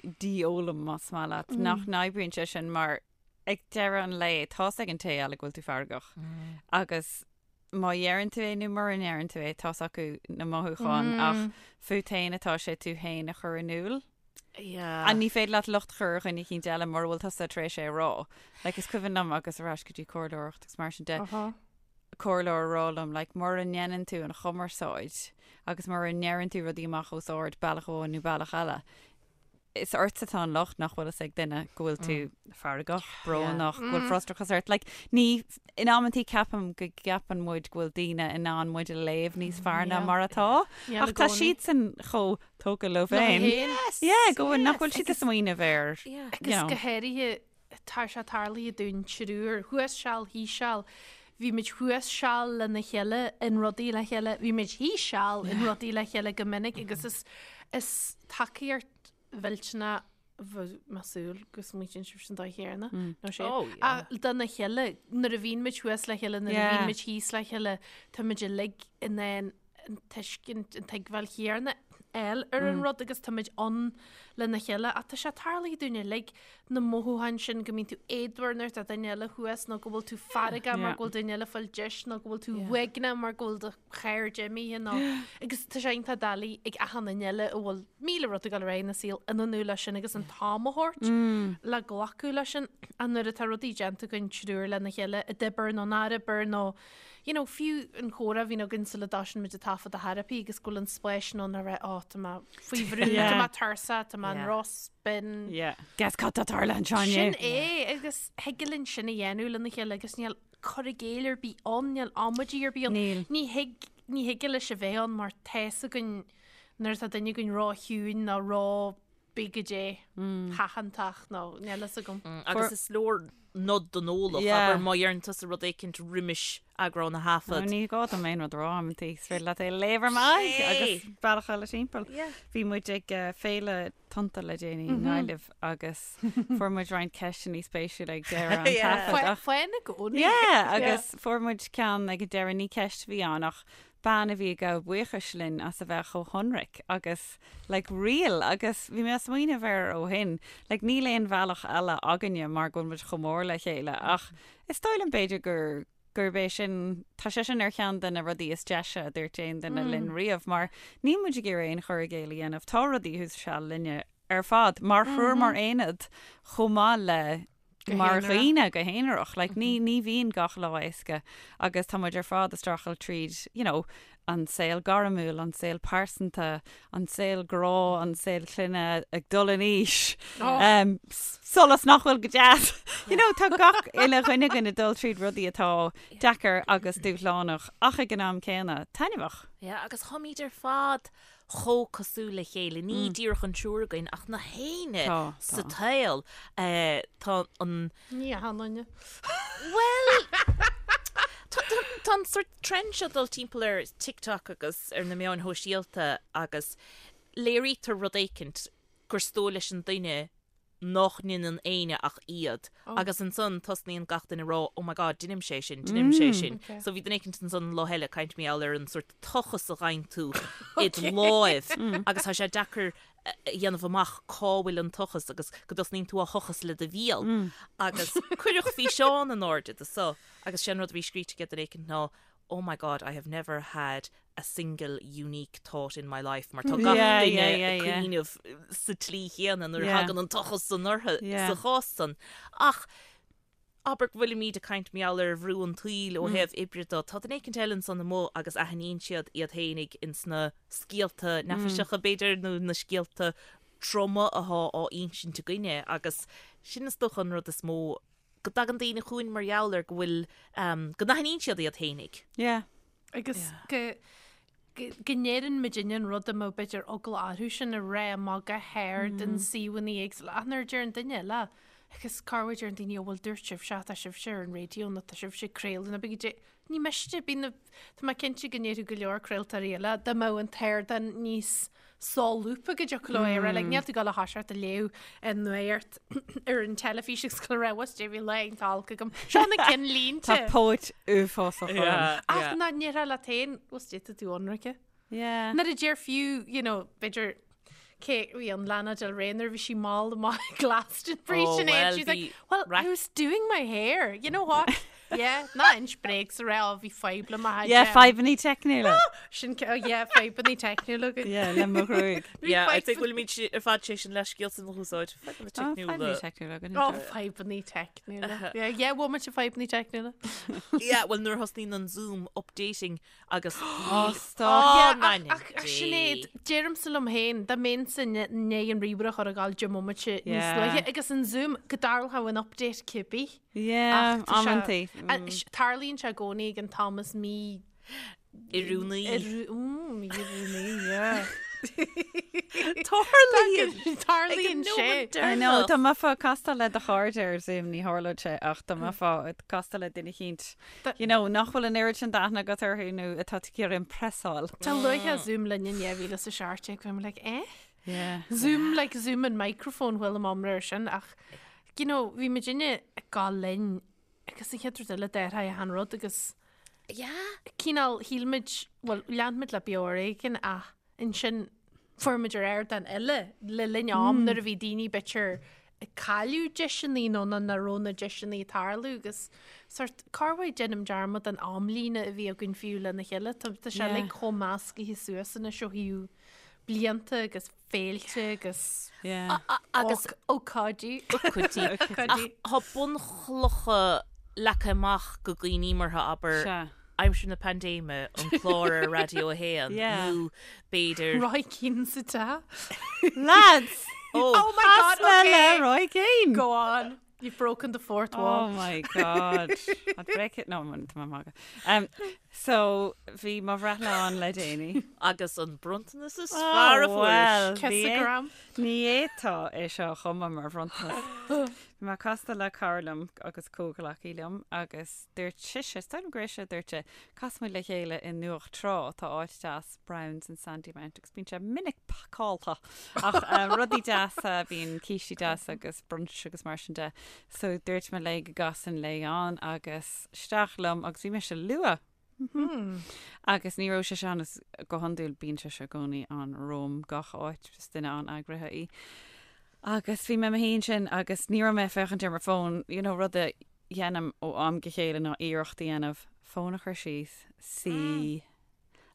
S4: dhífhoghlaim más maith leat nach n-oibríonn sé sin mar ag deireadh an lae tá's ag an té eile go bhfuil tú feargach agus má dheireann tú é nó mura ndeireann tú é tá's acu na mothúcháin ach fút féin atá sé tú féin a chur in iúl.
S2: Yeah.
S4: And ní féidir leat locht a chur ar dhuine eicínt eile mura bhfuil tusa tar éis é a rá. Like is cuimhin liom agus ar ais go dtí comhairleoireacht agus mar sin de, comhairleoir a rá liom like mura ndéanann tú an chumarsáid agus mura ndeireann tú rudaí amach os ard bealach amháin nó bealach eile, is ortsa atá an locht nach bhfuil fhios ag duine go bhfuil tú feargach, brónach, go bhfuil frustrachas ort. Like ní, in amantaí ceapaim go gceapann muid go bhfuil daoine in ann muid a léamh níos fearr ná
S3: Yeah.
S4: mar atá.
S3: Yeah,
S4: Ach
S3: i
S4: tá
S3: gcónaí.
S4: siadsan chomh tógtha leo féin. Yeah, go bhfuil nach bhfuil siad ag smaoineamh air.
S2: Yeah.
S4: you
S3: Agus
S4: know.
S3: go háirithe tá sé tarlaithe dúinn triúr, thuas seal, thíos seal, bhí muid thuas seal lena chéile in rudaí le chéile, bhí muid thíos seal in rudaí le chéile go minic agus is is tacaíocht mhillteanach bheadh mé ag súil go smaoitíonn sibh an dóigh chéanna nó sé.
S2: Oh, yeah.
S3: Ach dona chéile, nuair a bhíonn muid thuas le chéile, nuair a
S4: Yeah.
S3: bhíonn muid thíos le chéile, tá muid uilig in ann an tuiscint, an tuigbheáil chéanna. fháil ar an rud agus táimid ann lena chéile ach tá sé tarlaithe dúinn uilig na mothúcháin sin go mbíonn tú éadmhar nuair atá duine eile thuas nó go bhfuil tú feargach mar go bhfuil duine eile ag fáil deis nó go bhfuil tú uaigneach mar go bhfuil do chairde imithe nó agus tá sé iontach doiligh ag achan duine eile a bhfuil 1000 rud ag dul ar aghaidh ina saol ionannú leis sin agus an t-am a thabhairt le glacadh leis sin ach nuair atá rudaí déanta againn triúr lena chéile i d'obair nó nár obair nó you know, fiú an comhrá a bhíonn againn sula dtosaíonn muid ag taifead a therapy agus go bhfuil an spáis sin ann a rá, oh, tá mé faoi bhrú, tá mé tuirseach, tá mé in ró-spin.
S4: Yeah. Guess cad tá tarlaithe anseo inné.
S3: Sin é, agus thig linn sin a dhéanamh lena chéile agus níl cur i gcéill ar bith ann, níl amaidí ar bith ann.
S4: Níl.
S3: Ní thig, ní thig leis a bheith ann mar tá's againn nuair atá duine againn ró-chiúin nó ró bí go dé tathantach nó níl fhios agam.
S2: Agus is leor nod don eolach, abair má dheireann tusa rud éicint roimis eagrán a thaifead.
S4: Ní gá dom aon rud a rá amantaí, is féidir leat é a léamh ar m'aghaidh agus bealach eile timpeall. Bhí muid ag féile Tonnta le déanaí i nGaillimh agus fuair muid roinnt ceisteanna spéisiúla ag deireadh an taifead.
S3: Faoin i gcónaí.
S4: Yeah, agus fuair muid ceann ag an deireadh, ní ceist a bhí ann ach bean a bhí ag gabháil buíochais linn as a bheith chomh hionraic agus like real agus bhí mé ag smaoineamh air ó shin, like níl aon bhealach eile againne mar go bhfuil muid chomh mór le chéile ach is dóigh liom b'fhéidir gur gurb é sin, tá sé sin ar cheann de na rudaí is deise a dúirt aon duine linn riamh mar níl muid ag iarraidh aon chur i gcéill a dhéanamh, tá rudaí thuas seal linne ar fad mar thriúr mar aonad chomh maith le mar dhaoine go haonarach. Like, ní, ní bhíonn gach lá éasca agus tá muid ar fad ag streachailt tríd, you know, an saol gairmiúil, an saol pearsanta, an saol grá, an saol clainne, ag dul in aois, um, solas nach bhfuil go deas. You know, tá gach uile dhuine againn ag dul tríd rudaí atá deacair agus dúshlánach ach ag an am céanna taitneamhach.
S2: Yeah, agus táimid ar fad chomh cosúil le chéile, ní díreach an triúr againn ach na héinne sa tsaol. Tá an.
S3: Ní achan duine.
S2: Bhuel, tá an sort trend seo dul timpeall ar TikTok agus ar na meáin shóisialta agus léirítear rud éicint gur is dóigh leis an duine nach ndeineann éinne ach iad agus ansan tosnaíonn gach duine a rá oh my god deinimse é sin, deinimse é sin. So bhí duine éicint ansan an lá eile ag caint mar gheall ar an sort tochas a fhaigheann tú id láimh agus tá sé deacair a dhéanamh amach cá bhfuil an tochas agus go dtosnaíonn tú á thochas le do bhéal agus cuireadh físeán in airde de so agus sé an rud a bhí scríte ag duine éicint ná oh my god I have never had a single unique thought in my life mar tá gach duine ag cuimhneamh sa tslí chéanna nuair a thagann an tochas san orthu sa chás san. Ach abair go bhfuilimid ag caint mar gheall ar bhrú an tsaoil ó thaobh oibre de, tá duine éicint eile ansan amuigh agus aithníonn siad iad féinig ins na scéalta neafaiseacha b'fhéidir nó na scéalta troma athá á insint againne agus sin is dócha an rud is mó go dtagann daoine chugainn mar gheall ar go bhfuil, go n-aithníonn siad iad féinig.
S4: Yeah.
S3: Agus go go ndeireann muidinne an rud a mbeadh b'fhéidir eagla orthu sin a rá amach go hard in suíomhanna éagsúla ach nuair a deir an duine eile agus corruair deireann daoine ó bhuel dúirt sibhse tá sibhse ar an raidió nó tá sibhse ag craoladh nó bígí Ní miste, bíonn na, tá mé cinnte go ndéarfadh go leor craoltóirí eile dá mbeadh an t-ardán níos solúbtha go dtiocfadh leo é a rá, like, níl tú ag dul a thoiseacht a léamh an nuacht ar an teilifís agus go raibh us bhí lá iontach olc agam. Seo na cinnlínte.
S4: Tá póit uafásach orm.
S3: Ach ná ndéarfá leat féin, bhfuil tú tú ionraice.
S4: Yeah.
S3: Nuair a deir fiú, you know, b'fhéidir cé bhí an Lana Del Rey nuair a bhí sí mall amach ag Glastonbury
S2: Oh,
S3: sin
S2: well,
S3: she's like,
S2: bhí
S3: well,
S2: rac-
S3: I was doing my hair, you know what? Yeah, ná inis bréag sa rá bhí fadhb le mo
S4: Yeah, fadhbanna teicniúla.
S3: Sin oh, yeah, fadhbanna teicniúla.
S4: Yeah, le mo ghruaig.
S2: Yeah, I think bhfuilimid ar fad sé sin leithscéal san a úsáid. Fadhbanna
S4: Oh,
S2: teicniúla.
S4: fadhbanna teicniúla againn.
S3: Oh, fadhbanna teicniúla. Yeah, yeah, bhfuil muid fadhbanna teicniúla.
S2: Yeah, well nuair a thosnaíonn an Zoom updating Agus
S4: Ó, stop.
S2: Ó,
S3: Yeah,
S2: man,
S3: ach ach Sinéad, deirimse liom féin, dá mbeinnse i ndiaidh an ríomhaire a chur ag gabháil deich mbomaite níos
S4: Yeah.
S3: luaithe agus an Zoom go dtarlódh an update cibé.
S4: Yeah,
S3: Ach tá sé-
S4: amantaí.
S3: a- s- Tarlaíonn sé i gcónaí ag an t-am is mí
S2: Oiriúnaí.
S3: oiriú- mm, mí-oiriúnaí, yeah.
S2: Tarlaíonn.
S3: Tarlaíonn sé.
S4: I know, dá mbeifeá ag castáil le do chairde ar Zoom ní tharlódh sé ach dá mbeifeá ag castáil le duine eicínt, you know, nach bhfuil an oiread sin d'aithne agat orthu nó atá tú ag iarraidh impressáil.
S3: Dá luaithe Zoom linn in 2017 bhí mé like, eh?
S4: Yeah.
S3: Zoom, like Zoom an microphone bhfuil am amra ar sin ach, you know, bhí muidinne ag gabháil linn agus an chéad rud eile d'athraigh achan rud agus
S2: Yeah.
S3: cineál shíl muid, bhuel, lean muid le beo ar éigean ach ansin Fuair muid ar ardán eile le linn am nuair a bhí daoine b'fhéidir ag cailleadh deiseanna nó nach raibh na deiseanna ag tarlú agus sort corruair déanaim dearmad den amlíne a bhí againn fiú lena chéile. Tá tá sé uilig chomh meascaithe suas anois ó thaobh blianta agus féilte agus
S4: Yeah.
S2: Agus
S3: ócáidí.
S2: Ócáidí.
S3: Ócáidí.
S2: Ach tá bunchlocha leagtha amach go dhaoine mar abair
S4: Sea.
S2: aimsir na paindéime, an clár ar Raidió 1
S4: Yeah.
S2: nó b'fhéidir
S3: Roy Keane sa teach.
S4: Lads!
S2: Oh,
S3: Oh my God,
S4: Chas mé
S3: okay.
S4: le Roy Keane!
S3: Go on. You've broken the fourth
S4: Oh
S3: wall.
S4: my God. I'd break it. No, tá mé ag magadh. Um, so, bhí mo bhreithlá ann le déanaí.
S2: Agus an bronntanas is fearr a
S4: Oh,
S2: fuair.
S4: well, bhí é-
S3: Kissogram.
S4: Ní fhéadfá é seo a chumadh mar bhronntanas. Bhí mé casta le cara liom agus comhghleacaí liom agus dúirt sise, is dóigh liom gur ise a dúirt é, casfaidh muid le chéile i nDumhach Trá, tá áit deas Browns in Sandymount agus bíonn sé minic pacáilte ach rudaí deasa, bíonn cístí deasa agus brunch agus mar sin de. So dúirt mé léi go gcasfainn léi ann agus isteach liom agus bhí mise luath. Agus ní raibh sise ann is go hiondúil bíonn sise i gcónaí ann romham gach áit, is duine an-eagraithe í. Agus bhí mé i mo shuí ansin agus ní raibh mé ag féachaint ar mo fón, you know, rud a dhéanaim ó am go chéile ná iarracht a dhéanamh fón a chur síos, suí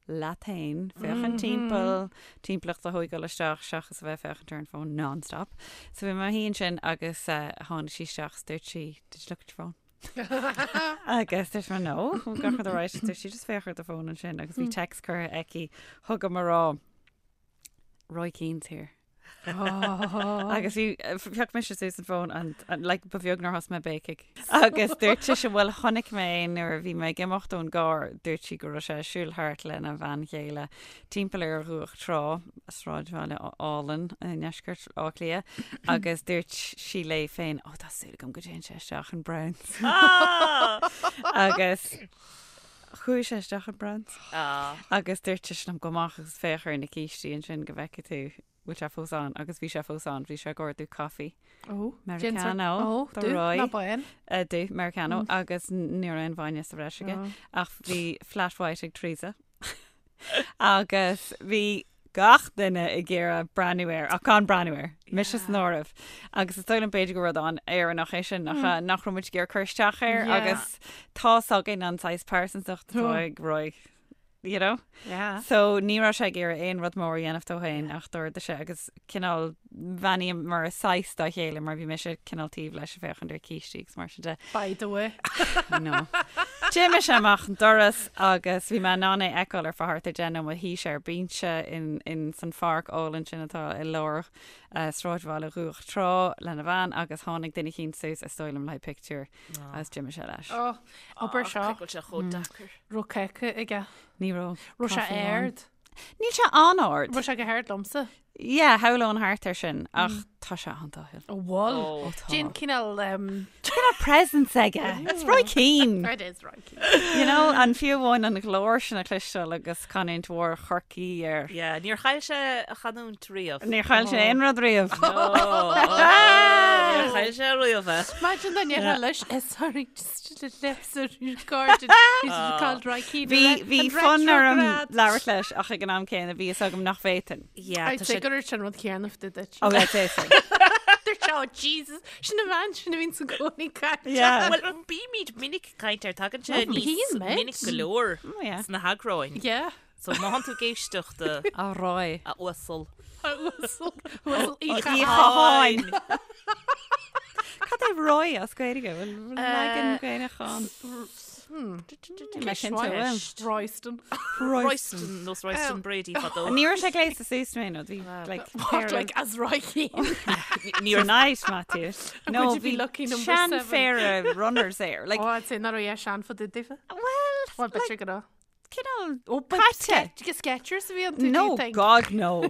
S4: leat féin, féachaint timpeall, timpeallacht a thógáil isteach seachas a bheith ag féachaint ar an fón non-stop. So bhí mé i mo shuí ansin agus tháinig sí isteach is dúirt sí, did you look at your phone? Agus dúirt mé no, gach rud alright, dúirt sí just féach ar do fón ansin agus bhí text curtha aici chugam ag rá Roy Keane's here. Agus bhí phioc mise suas an fón and, and like ba bheag nár thosaigh mé ag béicigh. Agus dúirt sise bhuel chonaic mé é nuair a bhí mé ag imeacht ón gcarr, dúirt sí go raibh sé ag siúl thart lena bhean chéile timpeall ar Dhumhach Trá, sráidbhaile álainn i ndeisceart Átha Cliath, agus dúirt sí léi féin, ó tá súil agam go dtéann sé isteach in Browns. Agus chuaigh sé isteach in Browns. Agus dúirt sise liom gabh amach agus féach ar na cístí ansin go bhfeicfidh tú bhfuil sé fós ann agus bhí sé fós ann, bhí sé ag ordú caife.
S3: Ó,
S4: Americano
S3: Ó,
S4: do
S3: dubh
S4: Roy.
S3: ná bán.
S4: Dubh, Americano, agus ní raibh aon bhainne sa bhreis aige, ach bhí flat white ag Teresa. Agus bhí gach duine ag iarraidh breathnú air, ach gan breathnú air, mise san áireamh. Agus is dóigh liom b'fhéidir gur rud an-Éireannach é sin, nach ea, nach raibh muid ag iarraidh cur isteach air agus tá's againn an saghas pearsantacht atá ag Roy, you know?
S3: Yeah.
S4: So ní raibh sé ag iarraidh aon rud mór a dhéanamh dó féin ach d'ordaigh sé agus cineál bheannaíomar saghas dá chéile mar bhí mise cineál taobh leis ag féachaint ar cístí agus mar sin de.
S3: By the way.
S4: I know. D'imigh sé amach an doras agus bhí mé in ann é a fheiceáil ar feadh thart ar 10 nóiméad. Shuigh sé ar binse in, in san pháirc álainn sin atá i lár uh, sráidbhaile Dhumhach Trá lena bhean agus tháinig duine eicínt suas is dóigh liom le haghaidh pictiúr agus d'imigh sé leis.
S3: Oh, obair seo.
S2: Cé go bhfuil sé chomh deacair.
S3: Raibh cáca aige.
S4: Ní raibh.
S3: Raibh sé
S4: caife amháin.
S3: ard.
S4: Níl sé an-ard.
S3: Raibh sé go hard liomsa.
S4: Yeah, shamhlóinn thart ar sin, ach tá sé an-dathúil.
S3: Ó bhuel.
S2: Ó,
S4: tá.
S3: Déan cineál...
S4: Cineál presence aige. It's Roy Keane.
S3: It is Roy Keane.
S4: You know, an fiú amháin an ghlór sin a chloisteáil agus canúint mhór Chorcaí air.
S2: Yeah, níor chaill sé a chanúint riamh.
S4: Níor chaill sé aon rud riamh.
S2: Níor chaill sé riamh é.
S3: Imagine dá ndéarfá leis, eh, sorry, just a little recorded. He's called Roy Keane.
S4: Bhí bhí fonn orm labhairt leis ach ag an am céanna bhí fhios agam nach bhféadfainn.
S2: Yeah,
S3: I'd
S2: tá
S3: say
S2: sé
S3: gur ar sin rud céanna fá duit.
S4: Oh, yeah, say so.
S3: Dúirt sé, oh Jesus, sin an bhean sin a bhíonn i gcónaí ag caint.
S4: Yeah.
S2: Well, bímid minic ag caint air, tagann sé
S3: Well,
S2: níos
S3: bíonn muid.
S2: minic go leor
S4: Oh, yeah.
S2: sna heagráin.
S3: Yeah.
S2: So má thánn tú ag éisteacht a
S4: A Roy.
S2: a uasal.
S3: A uasal, uasal Uí
S4: Uí
S3: Chatháin.
S4: Chatháin. Cad é Roy as Gaeilge? Bhfuil leagan Gaelach ann? Níl mé cinnte, bhfuil.
S3: Royston.
S2: Royston, nós Royston Brady fadó.
S4: Ní raibh sé gléasta suas mé nó bhí like
S3: What, like as Roy Keane?
S2: Ní raibh
S4: Tonight, Matthew. No,
S3: Would you be
S4: bhí
S3: lucky number seven?
S4: seanphéire runners air. Like,
S3: Oh, I'd say nach raibh é sean fá dtaobh daofa.
S4: well,
S3: Well, b'fhéidir go raibh.
S4: cineál
S3: Oh, but
S4: caite.
S3: Sketch, Skechers a bhí iontu, do you
S4: No,
S3: think?
S4: God, no.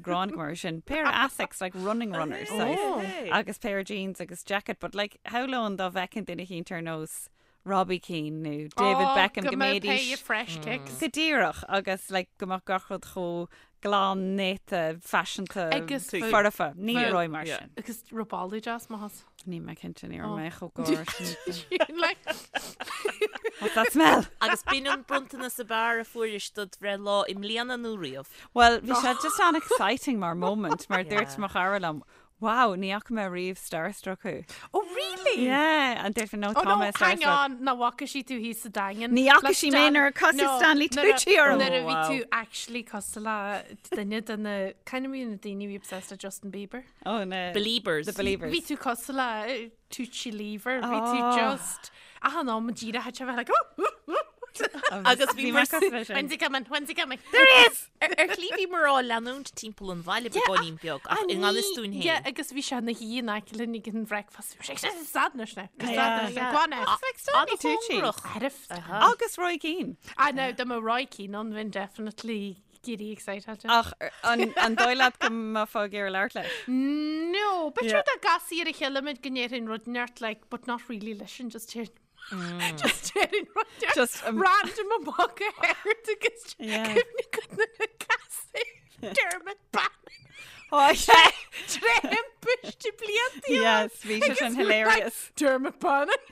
S4: Gráin go mar sin. Pair of Asics, like running runners. size.
S3: Oh.
S4: Agus pair of jeans agus jacket, but like, shamhlóinn dá bhfeicfinn duine eicínt ar nós Robbie Keane nó David
S3: Oh,
S4: Beckham
S3: go
S4: go
S3: mbeadh
S4: mbeidís
S3: pair of fresh kicks.
S4: Go díreach agus like go mbeadh gach rud chomh. glan néata faiseanta
S3: Agus
S4: foirfe. Ní raibh mar sin.
S3: Agus raibh boladh deas maith as.
S4: Níl mé cinnte ní raibh mé chomh gar sin.
S3: Like,
S4: What's that smell?
S2: Agus b'in an bronntanas ab fhearr a fuairis dod bhreithlá i mbliana nó riamh.
S4: Well, bhí sé just an-exciting mar moment mar dúirt mo chara liom, Wow, ní fhaca mé riamh starstruck thú.
S3: Oh really?
S4: Yeah, and dúirt mé no
S3: Oh
S4: tá
S3: no,
S4: mé
S3: hang
S4: starstruck.
S3: on, nach bhfaca sí tú thíos sa Daingean.
S4: Ní fhaca
S3: Le
S4: sí mé nuair a casadh
S3: No,
S4: Stanley
S3: nuair a-
S4: Tucci orm.
S3: Nuair a
S2: Oh,
S3: bhí
S2: wow.
S3: tú actually cosúil le duine de na, kind of na daoine a bhí obsessed le Justin Bieber.
S4: Oh no.
S2: Beliebers.
S4: The Beliebers.
S3: Bhí tú cosúil le Tucci Lever, bhí tú
S4: Oh.
S3: just, achan am díreach a bheith like, oh, oh, oh.
S2: Agus bhí
S4: bhí
S2: mar
S4: mé cosúil leis sin.
S3: When's he coming? When's he coming?
S2: There he is! Ar ar shlí bhíomar á leanúint timpeall an bhaile beagáinín beag ach i ngan fhios dúinn
S3: Yeah,
S2: féin.
S3: agus bhí sé ina shuí in aice linn ag an bhreakfast. Bhí sé ag stad anois now.
S4: Yeah.
S3: Stad anois now. Go on now.
S4: It's like Stanley Tucci.
S2: An-chóngarach.
S3: Arif.
S4: Agus Roy Keane.
S3: Ah, no, dá mbeadh Roy Keane ann, bheinn definitely giddy excited.
S4: Ach an an dóigh leat go mbeifeá ag iarraidh labhairt leis?
S3: No, but
S4: Yeah.
S3: sure dá gcasfaí ar a chéile muid go ndéarfainn rud inteacht, like, but not really leis sin, just déarfainn just déarfainn rud inteacht
S4: Just, um,
S3: random amach go hard agus
S4: Yeah.
S3: cuimhne agat nuair a casadh Dermot Bannon
S4: Oh, yeah.
S3: tré thimpiste blianta
S4: Yes, bhí sé sin hilarious.
S3: Dermot Bannon.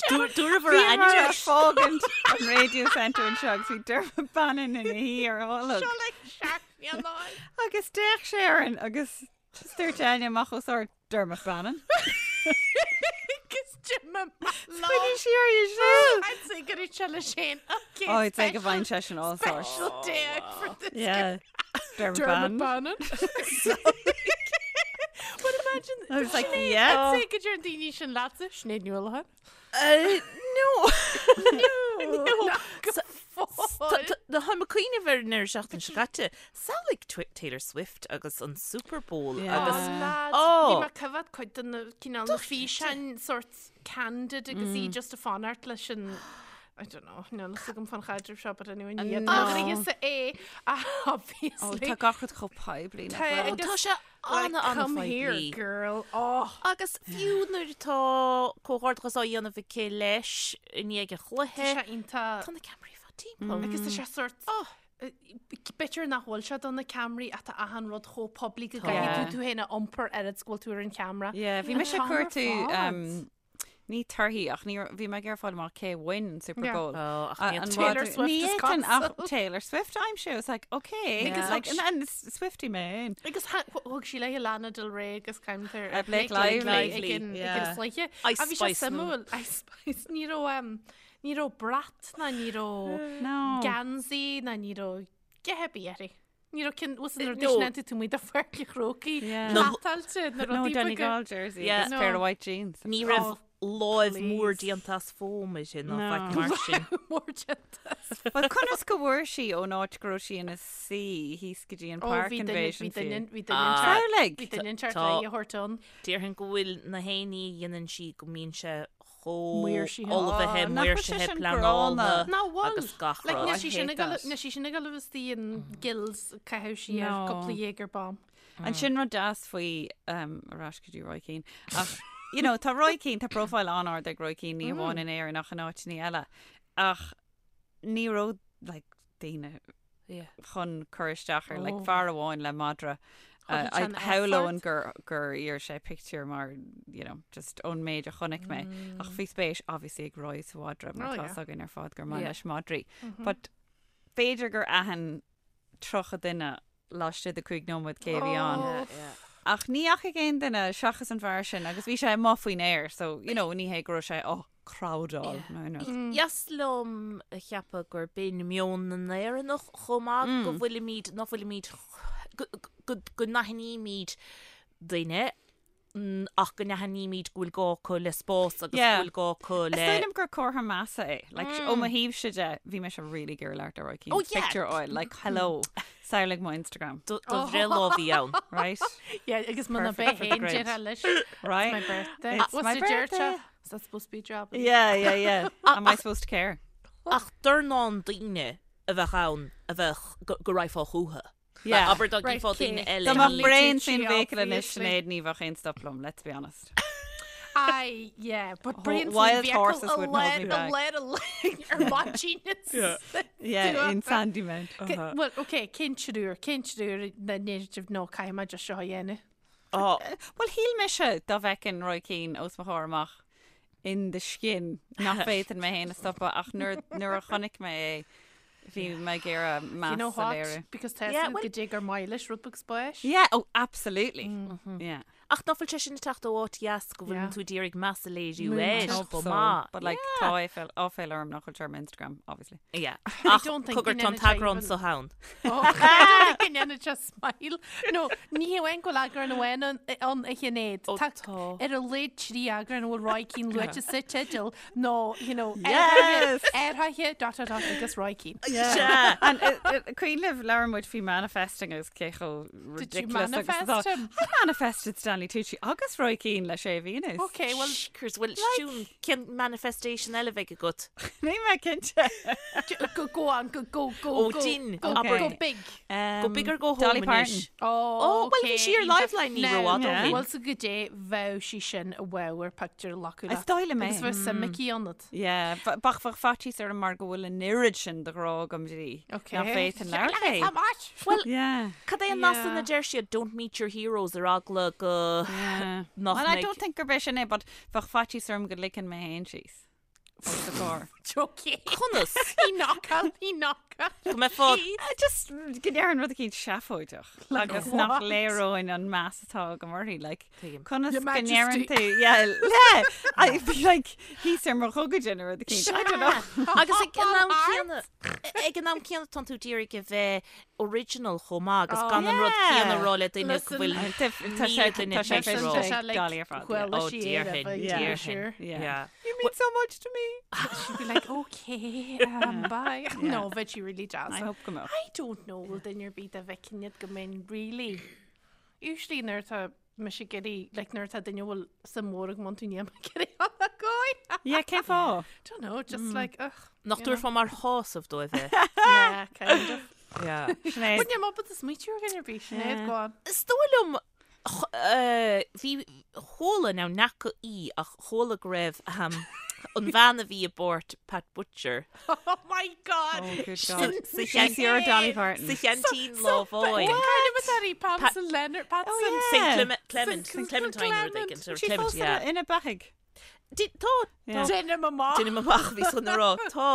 S2: Dúradh a ainm
S4: Bhíomar ag
S2: leis.
S4: fágaint an Radio Centre anseo agus bhí Dermot Bannon ina shuí ar tholg.
S3: Seo like seachnaíonáin.
S4: Agus d'fhéach sé orainn agus just dúirt Áine amach os ard Dermot Bannon.
S3: Agus Jim
S4: Choinnigh sí uirthi siúd.
S3: I'd say go raibh sé leis féin. Okay,
S4: Oh, I'd say go bhfaigheann sé sin all sorts.
S3: Special day out for this
S4: Yeah. Dermot
S3: Dermot
S4: Bannon.
S3: Bannon. But imagine
S4: I was like,
S3: Sinéad,
S4: yeah.
S3: I'd say go deireann daoine sin leatsa, Sinéad Ní Uallacháin.
S2: No.
S3: No.
S2: Tá mé ag cuimhneamh ar an seachtain seo caite, samhlaigh Taylor Swift agus an Super Bowl
S4: Yeah.
S2: agus
S3: Lads,
S2: Oh.
S3: bhí mé ag coimhéad cuid de na cineál na físeáin sort candid agus í just ag fanacht leis an I don't know, níl fhios agam fán chaidreamh seo, but anyway, ní
S4: No.
S3: fhios é,
S4: Oh,
S3: obviously.
S4: tá gach rud chomh poiblí nach
S3: Tá-
S4: bhfuil?
S3: agus-
S2: Tá sé
S3: Like,
S2: ana
S3: come here,
S2: an-phoiblí.
S3: girl. Oh.
S2: Agus fiú nuair atá comhghairdeachas á dhéanamh aici leis i ndiaidh an chluiche,
S3: Tá sé iontach.
S2: tá na ceamaraí fá timpeall.
S3: Agus tá sé sort b'fhéidir nach bhfuil sé do na ceamaraí ach tá achan rud chomh poiblí go gcaithfidh tú tú féin a iompar oiread is go bhfuil tú ar an cheamara.
S4: Yeah, bhí mise
S3: An
S4: ag cuartú
S3: t-am ar fad.
S4: um, ní torthaí ach ní bhí mé ag iarraidh fáil amach cé bhain an Super
S3: Yeah.
S4: Bowl.
S2: Oh, ach
S4: A-
S2: ní
S4: an
S3: Taylor
S4: mhadra-
S3: Swift
S4: ní
S3: is
S4: fhéadfainn ach
S3: cosúil.
S4: Taylor Swift aimsiú. It's like, okay.
S3: Agus
S4: Like,
S3: thug
S4: and, and Swiftie mé féin.
S3: Agus thug sí léi Lana Del Rey agus caimtear
S4: Uh, Blake Lively.
S3: ag an
S4: Yeah.
S3: sléithe.
S2: Ice
S3: A bhí sé
S2: Spice nó.
S3: suimiúil Ice Spice ní raibh um, ní raibh brat ná ní raibh
S4: No.
S3: geansaí ná ní raibh a dhath ar bith uirthi. Ní raibh cinn was nuair
S2: No.
S3: duine tú muid a pháirc an Chrócaigh
S4: Yeah.
S2: No.
S3: plátáilte na
S4: No
S3: rudaí beaga.
S4: Donegal jersey,
S2: Yeah.
S4: agus
S3: No.
S4: pair of white jeans.
S2: Ní raibh
S3: Oh,
S2: láimh mór
S3: please.
S2: déanta as foam uirthi ná
S4: No.
S2: faic mar sin.
S3: Mór déanta as
S4: Well, conas go bhfuair sí ón áit go raibh sí ina suí thíos go dtí an
S3: Oh,
S4: park
S3: bhí duine
S4: invasion
S3: bhí duine
S4: fiú.
S3: bhí duine
S2: Ah.
S3: teart
S4: Samhlaigh!
S3: bhí duine teart
S2: Tá-
S3: léi a thabhairt ann.
S2: Déarfainn go bhfuil na haon ní a dhéanann sí go mbíonn sé chomh
S3: Maoirsithe.
S2: ullmhaithe,
S4: Oh, nach bhfuil sé
S2: maoirsithe,
S4: sin
S2: pleanáilte
S4: gránna?
S3: Ná bhfuil.
S2: agus gach
S3: Like,
S2: rud.
S3: níl sí sin
S4: I hate
S3: ag
S4: that.
S3: níl sí sin ag dul istigh in gills caitheamh sí ar
S4: No.
S3: cúpla Jaeger bomb.
S4: An sin rud deas faoi um, ar ais go dtí Roy Keane. Ach, you know, tá Roy Keane, tá profile an-ard ag Roy Keane ní amháin in Éirinn ach in áiteanna eile. Ach ní raibh like, daoine
S2: Yeah.
S4: chun cur isteach ar like,
S3: Oh.
S4: fear amháin le madra.
S3: Thug sé an
S4: Shamhlóinn
S3: effort.
S4: gur gur iarr sé pictiúr mar you know, just ón méid a chonaic mé. Ach bhí spéis obviously ag Roy sa mhadra mar
S3: Oh,
S4: tá
S3: yeah.
S4: fhios againn ar fad gur maith
S2: Yeah.
S4: leis madraí. But b'fhéidir gur aithin 30 duine laistigh de 5 nóiméad cé a bhí ann.
S3: Oh.
S4: Ach ní fhaca aon duine seachas an fear sin agus bhí sé amuigh faoin aer, so you know, ní hé go raibh sé á crowdáil nó aon rud.
S2: Dheas liom a cheapadh gur b'in meon na nÉireannach chomh maith go bhfuilimid, nach bhfuilimid, go, go, go n-aithnímid duine ach go n-aithnímid go bhfuil gá acu le spás agus
S4: Yeah.
S2: go bhfuil gá acu
S4: Is
S2: le
S4: dóigh liom gur comhartha measa é. Like, ó mo thaobhse de, bhí mise really ag iarraidh labhairt le Roy Keane.
S2: Oh, yeah.
S4: Picture fháil, like, hello, samhlaigh mo Instagram,
S2: do do bhreithlá a bhí ann.
S4: right?
S3: Yeah, agus muna
S4: Perfect
S3: bheith
S4: for the
S3: féin
S4: grid.
S3: deir leis.
S4: Right?
S3: It's my birthday.
S4: It's
S3: What's
S4: my
S3: the deir
S4: birthday.
S3: te? Is that supposed to be a job?
S4: Yeah, yeah, yeah. Am I supposed to care?
S2: Ach dornán daoine a bheadh ann a bheadh go go raghfá chucu.
S4: Yeah.
S2: Abair dá
S3: Right,
S2: gcífeá daoine
S3: cé?
S2: eile.
S4: Dá
S3: Stanley
S4: mbeadh braon
S3: Tucci,
S4: faoin bhfiacail anois
S3: obviously.
S4: Sinéad ní bheadh aon stop liom, let's be honest.
S3: Aye, yeah, but Brian
S4: Wild horses wouldn't hold me back.
S3: Ar maidin.
S4: Yeah, in Sandymount.
S3: Well, okay, cén triúr, cén triúr na ndéarfaidh no caithfidh mé just seo a dhéanamh.
S2: Oh.
S4: Well, shíl mise dá bhfeicfinn Roy Keane os mo chomhair amach in the skin nach bhféadfainn mé féin a stopadh ach nuair nuair a chonaic mé é bhí mé ag iarraidh
S3: You know
S4: meas a
S3: what?
S4: léiriú.
S3: Because tá
S2: Yeah,
S3: yeah,
S2: well-
S3: go dté gur maith leis rud beag spáis.
S4: Yeah, oh, absolutely. Yeah.
S2: Ach nach bhfuil sé sin ag teacht ó áit dheas go bhfuil
S3: Yeah.
S2: tú ag iarraidh meas a léiriú
S3: Múinteoir.
S2: air
S4: Hope
S2: chomh
S4: so.
S2: maith.
S4: But like tá áiféal áiféal orm nach bhfuil sé ar m'Instagram, obviously.
S2: Yeah.
S3: I
S2: Ach
S3: don't think
S2: cogar
S3: go
S2: tá an
S3: ndéanann sé
S2: t-eagrán
S3: even-
S2: so ann.
S3: Oh, I don't think go ndéanann sé smile. No, ní hamháin go bhfuil eagrán amháin ann ann a Shinéad.
S2: Ó,
S3: Tá
S2: tá.
S3: ar a laghad trí eagrán a bhfuil Roy Keane luaite sa teideal nó, you know,
S4: Yes!
S3: aerthaithe dot dot dot agus Roy Keane.
S2: Sea.
S4: And uh, uh, cuimhin libh labhair muid faoi manifesting agus cé chomh
S3: Did you
S4: ridiculous agus
S3: manifest
S4: atá.
S3: him?
S4: I manifested Stanley Tucci agus Roy Keane le sé mhí anuas.
S3: Okay, well,
S2: Shkers, well, siún, cén manifestation eile bheidh agat?
S4: Níl mé cinnte.
S3: go, go on, go, go, go,
S2: Ó,
S3: go,
S2: din,
S3: go,
S2: abair.
S3: go big.
S4: Um,
S2: Go big or go home
S4: Dolly
S2: anois.
S4: Parton.
S3: Oh,
S2: Oh, well, bhí
S3: okay,
S2: sí ar Liveline ní
S3: Now,
S2: raibh fhad ó
S4: Yeah.
S2: shin.
S3: Bhfuil sa go dé bheadh sí sin a bheadh ar pictiúr a ghlacadh
S4: Is
S3: leat.
S4: dóigh liom é.
S3: Agus bheadh suim aici ionat.
S4: Yeah, bheadh bheadh faitíos orm mar go bhfuil an oiread sin de ghrá agam di.
S3: Okay.
S4: Nach bhféadfainn labhairt léi.
S3: How much?
S2: Well,
S4: Yeah.
S2: cad é an nath
S3: Yeah.
S2: a deir siad don't meet your heroes ar eagla go
S4: Yeah.
S2: nach
S4: Well, I
S2: mbeidh-
S4: don't think gurb é sin é, but bheadh faitíos orm go ligfinn mé féin síos. Os a comhair.
S3: Okay.
S2: Conas?
S3: He knock out, he knock out.
S2: Go mbeifeá
S4: Uh, Just go ndéarfainn rud eicínt seafóideach agus
S3: what?
S4: nach léireoinn an meas atá agam uirthi, like,
S2: Tuigim.
S4: conas
S3: Your
S4: go
S3: Majesty.
S4: ndéarann tú, yeah, yeah, I'd be like, thíos ar mo ghogaide nó rud eicínt, I don't know.
S2: Agus ag an am céanna ag an am céanna tánn tú d'iarraidh a bheith original chomh maith agus gan an rud
S4: yeah.
S2: céanna a rá le duine go bhfuil
S4: Tá sé
S2: duine
S4: tá sé
S2: tar éis
S4: féin
S2: rá.
S4: sé Dolly ar fad, yeah.
S3: Well,
S2: Oh,
S3: she
S2: déarfainn,
S4: Yeah.
S2: déarfainn.
S4: Yeah.
S2: Yeah.
S4: You mean so much to me.
S3: She'd be like, okay, um, bye. No, bheadh sí really deas.
S4: I hope go mbeadh.
S3: I don't know, bhfuil duine ar bith dá bhfeicfinn iad go mbeinn really. Usually nuair atá mise ag iarraidh, like nuair atá duine a bhfuil suim mhór agam iontu níl mé ag iarraidh a gcóir.
S4: Yeah, cén fáth?
S3: Don't know, just like, ugh.
S2: Nach
S3: you know.
S2: dtabharfá mar shásamh dóibh é.
S3: Yeah, kind of.
S2: Yeah.
S4: Sinéad.
S3: But níl mé ábalta smaoitiú ar dhuine ar bith, Sinéad,
S4: Yeah.
S3: go on.
S2: Is dóigh liom eh, bhí chuala now nach í ach chuala go raibh um, an bhean a bhí i bpáirt Pat Butcher
S3: Oh my God!
S4: Oh, good
S2: sa
S4: God.
S2: sa
S4: She's your Dolly Parton.
S2: sa cheaintín lá amháin.
S3: Kind of a Patson Leonard Patson.
S4: Oh, yeah.
S2: St Clement, Clement,
S3: St.
S2: Clementine rud
S3: Clement.
S2: éigin, or
S4: She
S2: Clement,
S4: fós
S2: yeah.
S4: ina beathaidh.
S2: Di- Tá
S4: Yeah.
S3: Déanaim amach.
S2: Déanaim amach bhí san rá tá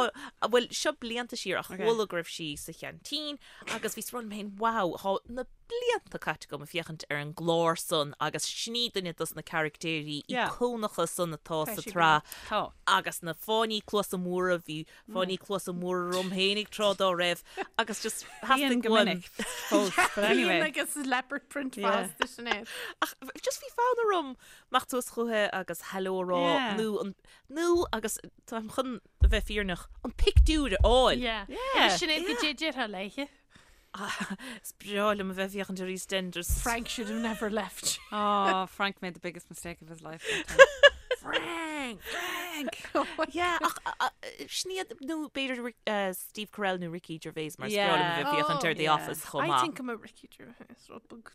S2: bhfuil seo blianta siar ach
S4: Okay.
S2: chuala go raibh sí sa cheaintín agus bhí rá liom féin wow tá na blianta caite agam ag féachaint ar an gclár san agus sin í duine dos na caractéirí
S4: Yeah.
S2: íocónacha san atá
S3: Tá
S2: sa
S3: sí
S2: tsraith
S4: Tá.
S2: agus na fáinní cluasa móra bhí fáinní cluasa móra orm féinig tráth dá raibh agus just
S4: Bíonn
S2: theastaigh
S4: go
S2: uaim
S4: minic fós, but anyway.
S3: Bíonn agus leopard print
S4: Yeah.
S3: fásta Sinéad.
S2: Ach just bhí fonn orm imeacht suas chuici agus hello a rá
S4: Yeah.
S2: nó an nó agus táim chun a bheith fírinneach an pictiúr a fháil.
S3: Yeah.
S4: Yeah.
S3: Agus Sinéad cad é a déarfá léithe.
S2: Is breá liom a bheith ag féachaint ar EastEnders.
S3: Frank should have never left.
S4: Oh, Frank made the biggest mistake of his life. that time.
S2: Frank!
S4: Frank!
S2: Yeah, ach sin iad nó b'fhéidir eh, Steve Carell nó Ricky Gervais mar is breá
S4: Yeah.
S2: liom a bheith ag féachaint ar
S3: Oh,
S2: The
S4: yeah.
S2: Office chomh
S3: I
S2: maith.
S3: think I'm a Ricky Gervais rud beag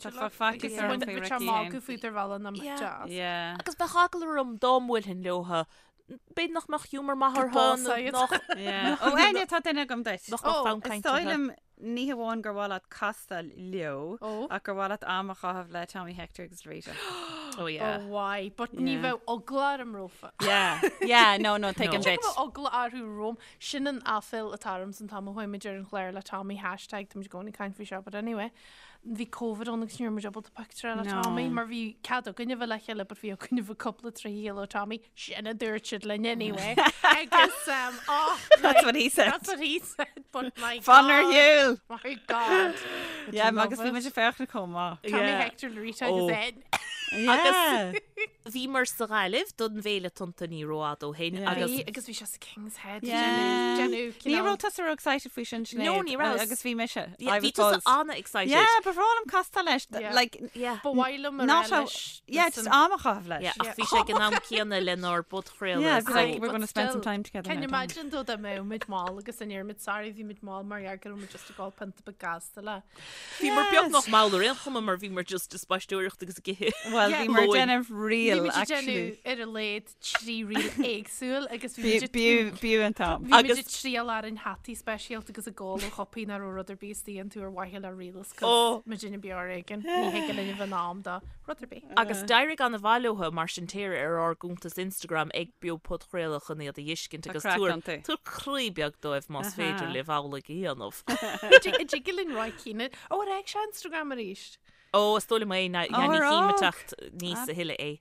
S4: tá faitíos orm faoi Ricky
S3: magadh faoi ar bhealach am
S2: Yeah.
S3: deas.
S4: Yeah.
S2: Agus bheadh eagla orm dá mbuailfinn leotha b'fhéidir nach mbeadh humour maith orthu
S3: bás
S2: nó
S3: iad.
S2: nach
S4: Yeah. Ó, Áine, tá duine agam duit.
S2: nach mbeadh
S3: Oh,
S2: fonn
S4: Is
S2: cainte
S4: dóigh
S2: orthu.
S4: liom ní hamháin gur mhaith leat castáil leo
S3: Ó.
S4: ach gur mhaith leat am a chaitheamh le Tommy Hector agus Rita.
S2: Oh yeah.
S3: Oh why? But ní
S4: Yeah.
S3: bheadh eagla orm rompu.
S4: Yeah. Yeah, no, no, tuigim
S2: No.
S4: duit.
S3: Bheadh eagla orthu romham. Sin an aiféala atá orm san t-am a chuaigh muid ar an chlár le Tommy hashtag tá muid i gcónaí ag caint faoi seo, but anyway. Bhí Covid ann agus ní raibh muid ábalta pictiúr a fháil le
S4: No.
S3: Tommy mar bhí cead againn a bheith le chéile but bhí againn a bheith cúpla trí chéile ó Tommy. Sin a dúirt siad linn anyway. Agus um, oh,
S4: That's what he said.
S3: That's what he said, but my
S4: Fan ar
S3: God.
S4: shiúl!
S3: My God. Would
S4: Yeah,
S3: you love
S4: agus bhí
S3: it?
S4: muid ag féachaint chomh maith.
S3: Tommy
S2: Yeah.
S3: Hector Rita agus
S2: Oh.
S3: Ed.
S4: Yeah.
S2: Bhíomar sa Ghaillimh don bhFéile Tonnta ní rófhada ó shin
S4: Yeah.
S2: agus
S3: Bhí agus bhí sé sa King's Head.
S4: Yeah.
S3: Déanamh
S4: Ní
S3: cineál.
S4: raibh tusa ró-excited faoi sin, Sinéad?
S2: No, ní raibh.
S4: Agus bhí mise.
S2: Yeah, bhí tusa an-excited.
S4: Yeah, ba bhreá liom castáil leis.
S3: Yeah.
S4: Like,
S2: Yeah.
S3: Ba mhaith liom a rá
S4: not a,
S3: leis.
S4: yeah, just am a chaitheamh leis.
S2: Yeah, ach bhí sé ag an am céanna lenár bpodchraoladh.
S4: Yeah, be
S2: so-
S4: like, we're
S3: But
S4: going to spend some
S3: still,
S4: time together
S3: Can
S4: now,
S3: you
S4: don't we?
S3: imagine though dá mbeadh muid mall agus an ndéarfaidh muid sorry bhí muid mall mar gheall go raibh muid just ag ól pionta beag gasta le.
S2: Bhíomar beagnach mall ar aon chuma mar bhíomar just ag spaisteoireacht agus ag ithe.
S4: Well,
S3: Yeah.
S4: bhí mar
S2: Lóin.
S4: déanamh
S3: Bhí
S4: reel,
S3: muid ag
S4: actually.
S3: déanamh ar a laghad 3 reel éagsúil agus bhí muid ag-
S4: B'fhiú an t-am.
S3: Bhí muid
S2: Agus-
S3: ag triail orainn hataí speisialta agus ag ól ó chupaí nach raibh rud ar bith istigh iontu ar mhaithe le reels
S2: Oh.
S3: cos muid ina beo ar éigean. Ní thig linn a bheith in am do rud ar bith.
S2: Agus d'éirigh an-mhaith leo mar sin téir ar ár gcuntas Instagram ag Beo Podchraoladh chun iad a fheiscint
S4: Tá
S2: agus
S4: craic
S2: tabhair
S4: iontu.
S2: tabhair croí beag dóibh más féidir
S4: Aha.
S2: libh amhlaidh a dhéanamh.
S3: An dtig linn Roy Keane. Ó, ar fhág sé Instagram arís?
S2: Ó, is dóigh liom é,
S4: Ó,
S2: ní
S4: ar
S2: chím ag
S4: fhág.
S2: teacht níos a thuilleadh é.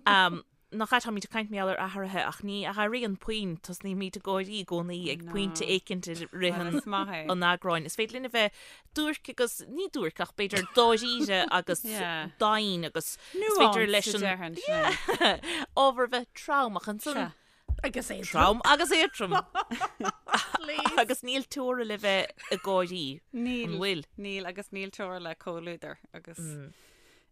S2: Um, Nach ea, táimid ag caint mar gheall ar athruithe ach ní athraíonn puinn, tosnaímid ag gáirí i gcónaí ag pointe éicint i rith
S4: Well,
S2: an
S4: is maith é.
S2: an eagráin. Is féidir linn a bheith duairc agus, ní duairc ach b'fhéidir dáiríre agus
S4: Yeah.
S2: domhain agus is féidir leis
S4: Nuanced,
S2: an
S4: a déarfainn, Sinéad.
S2: ábhar a bheith trom ach ansan
S4: Sea.
S3: Agus éadrom.
S2: trom agus éadrom
S3: Please.
S2: agus níl teora le bheith ag gáirí.
S4: Níl.
S2: An bhfuil?
S4: Níl agus níl teora le comhluadar agus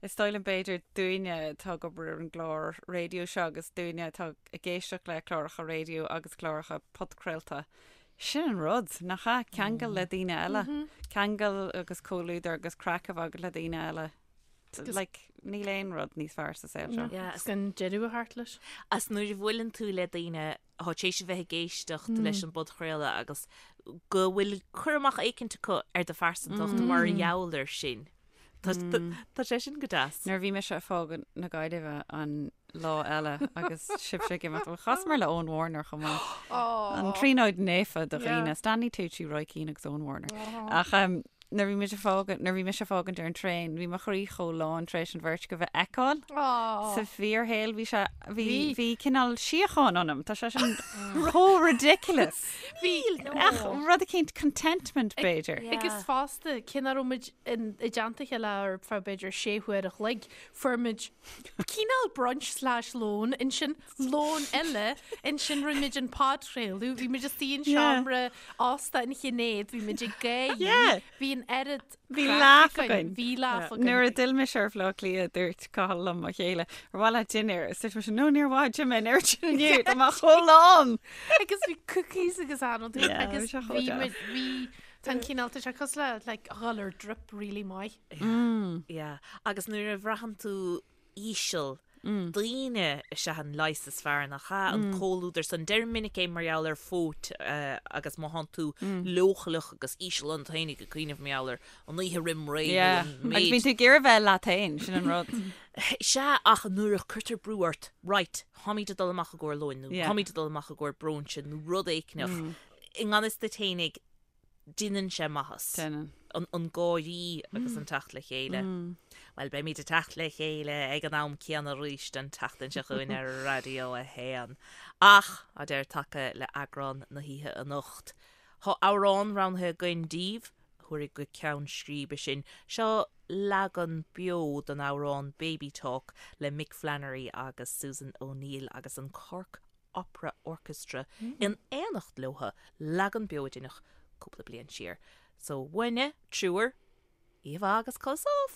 S4: is dóigh liom b'fhéidir dúinne atá ag obair ar an gclár raidió seo agus dúinne atá ag éisteacht le cláracha raidió agus cláracha podchraolta, sin an rud, nach ea? Ceangal le daoine eile. Ceangal agus comhluadar agus craic a bheith agat le daoine eile. Like, níl aon rud níos fearr sa saol seo.
S2: Yeah.
S3: Is gan deireadh a theacht leis.
S2: Is nuair a bhuaileann tú le daoine atá tar éis a bheith ag éisteacht leis an bpodchraoladh agus go bhfuil cur amach éicint acu ar do phearsantacht mar gheall air sin. Tá tá sé sin go deas.
S4: Nuair a bhí mise ag fágaint na Gaillimhe an lá eile agus sibhse ag imeacht, bhuel, chasamar le Eoin Warner chomh maith. An tríonóid naofa do
S3: Yeah.
S4: dhaoine, Stanley Tucci, Roy Keane agus Eoin Warner. Ach um, nuair bhí mise ag fágaint, nuair bhí mise ag fágaint ar an traein, bhí mo chroí chomh lán tar éis an bheirt acu a fheiceáil. Sa fíorshaol bhí sé, bhí, bhí cineál síocháin ionam. Tá sé sin chomh ridiculous.
S3: Bhí,
S4: Ach rud eicínt contentment b'fhéidir.
S3: Agus fosta, cé nach raibh muid in, i dteannta a chéile ar feadh b'fhéidir sé huaire a chloig, fuair muid cineál brunch slash lón, ansin lón eile, ansin rinne muid an podchraoladh, bhí muid istigh in seomra ósta an Shinéad, bhí muid ag gáirí,
S4: Yeah.
S3: bhí an oiread
S4: Bhí
S3: craic
S4: laugh
S3: againn,
S4: againn.
S3: Bhí laugh againn.
S4: Nuair a d'fhill mise ar Bhaile Átha Cliath dúirt Cathal liom mo chéile, ar mhaith leat dinnéar? Is dúirt mise, no níor mhaith, d'ith mé an oiread sin inniu, tá mé chomh lán!
S3: Agus bhí cookies agus ann
S4: Yeah,
S3: agus
S4: bhí sé chomh
S3: bhí
S4: deas.
S3: muid, bhí, tá an cineál, tá sé cosúil le like a dhul ar drip really maith.
S2: Yeah. Agus nuair a bhraitheann tú íseal, daoine is ea an leigheas is fearr, nach ea? An comhluadar san. Deirim minic é mar gheall ar phóit agus má thánn tú leochaileach agus íseal ionat féinig ag cuimhneamh mar gheall ar an oíche roim ré nó
S4: Yeah.
S2: an
S4: Agus
S2: méid.
S4: bíonn tú ag iarraidh bheith leat féin, sin an rud.
S2: Sea, ach nuair a cuirtear brú ort, right, táimid ag dul amach i gcomhair lóin nó
S4: Yeah.
S2: táimid ag dul amach i gcomhair bróinse nó rud éicneach, i ngan fhios duit fhéinig, Déanann sé maitheas.
S4: Déanann.
S2: An gáirí agus an teacht le chéile. Bhuel, beimid ag teacht le chéile ag an am céanna arís an tseachtain seo chugainn ar Raidió 1. Ach, tá deireadh tagtha le eagrán na hoíche anocht. Tá amhrán roghnaithe againn daoibh, a thabharfaidh go ceann scríbe sinn. Seo leagan beo den amhrán Baby Talk le Mick Flannery agus Susan O'Neill agus an Cork Opera Orchestra in éineacht leo, leagan beo a deineadh cúpla bliain siar. So, uainne, triúr, oíche mhaith agus codladh sámh!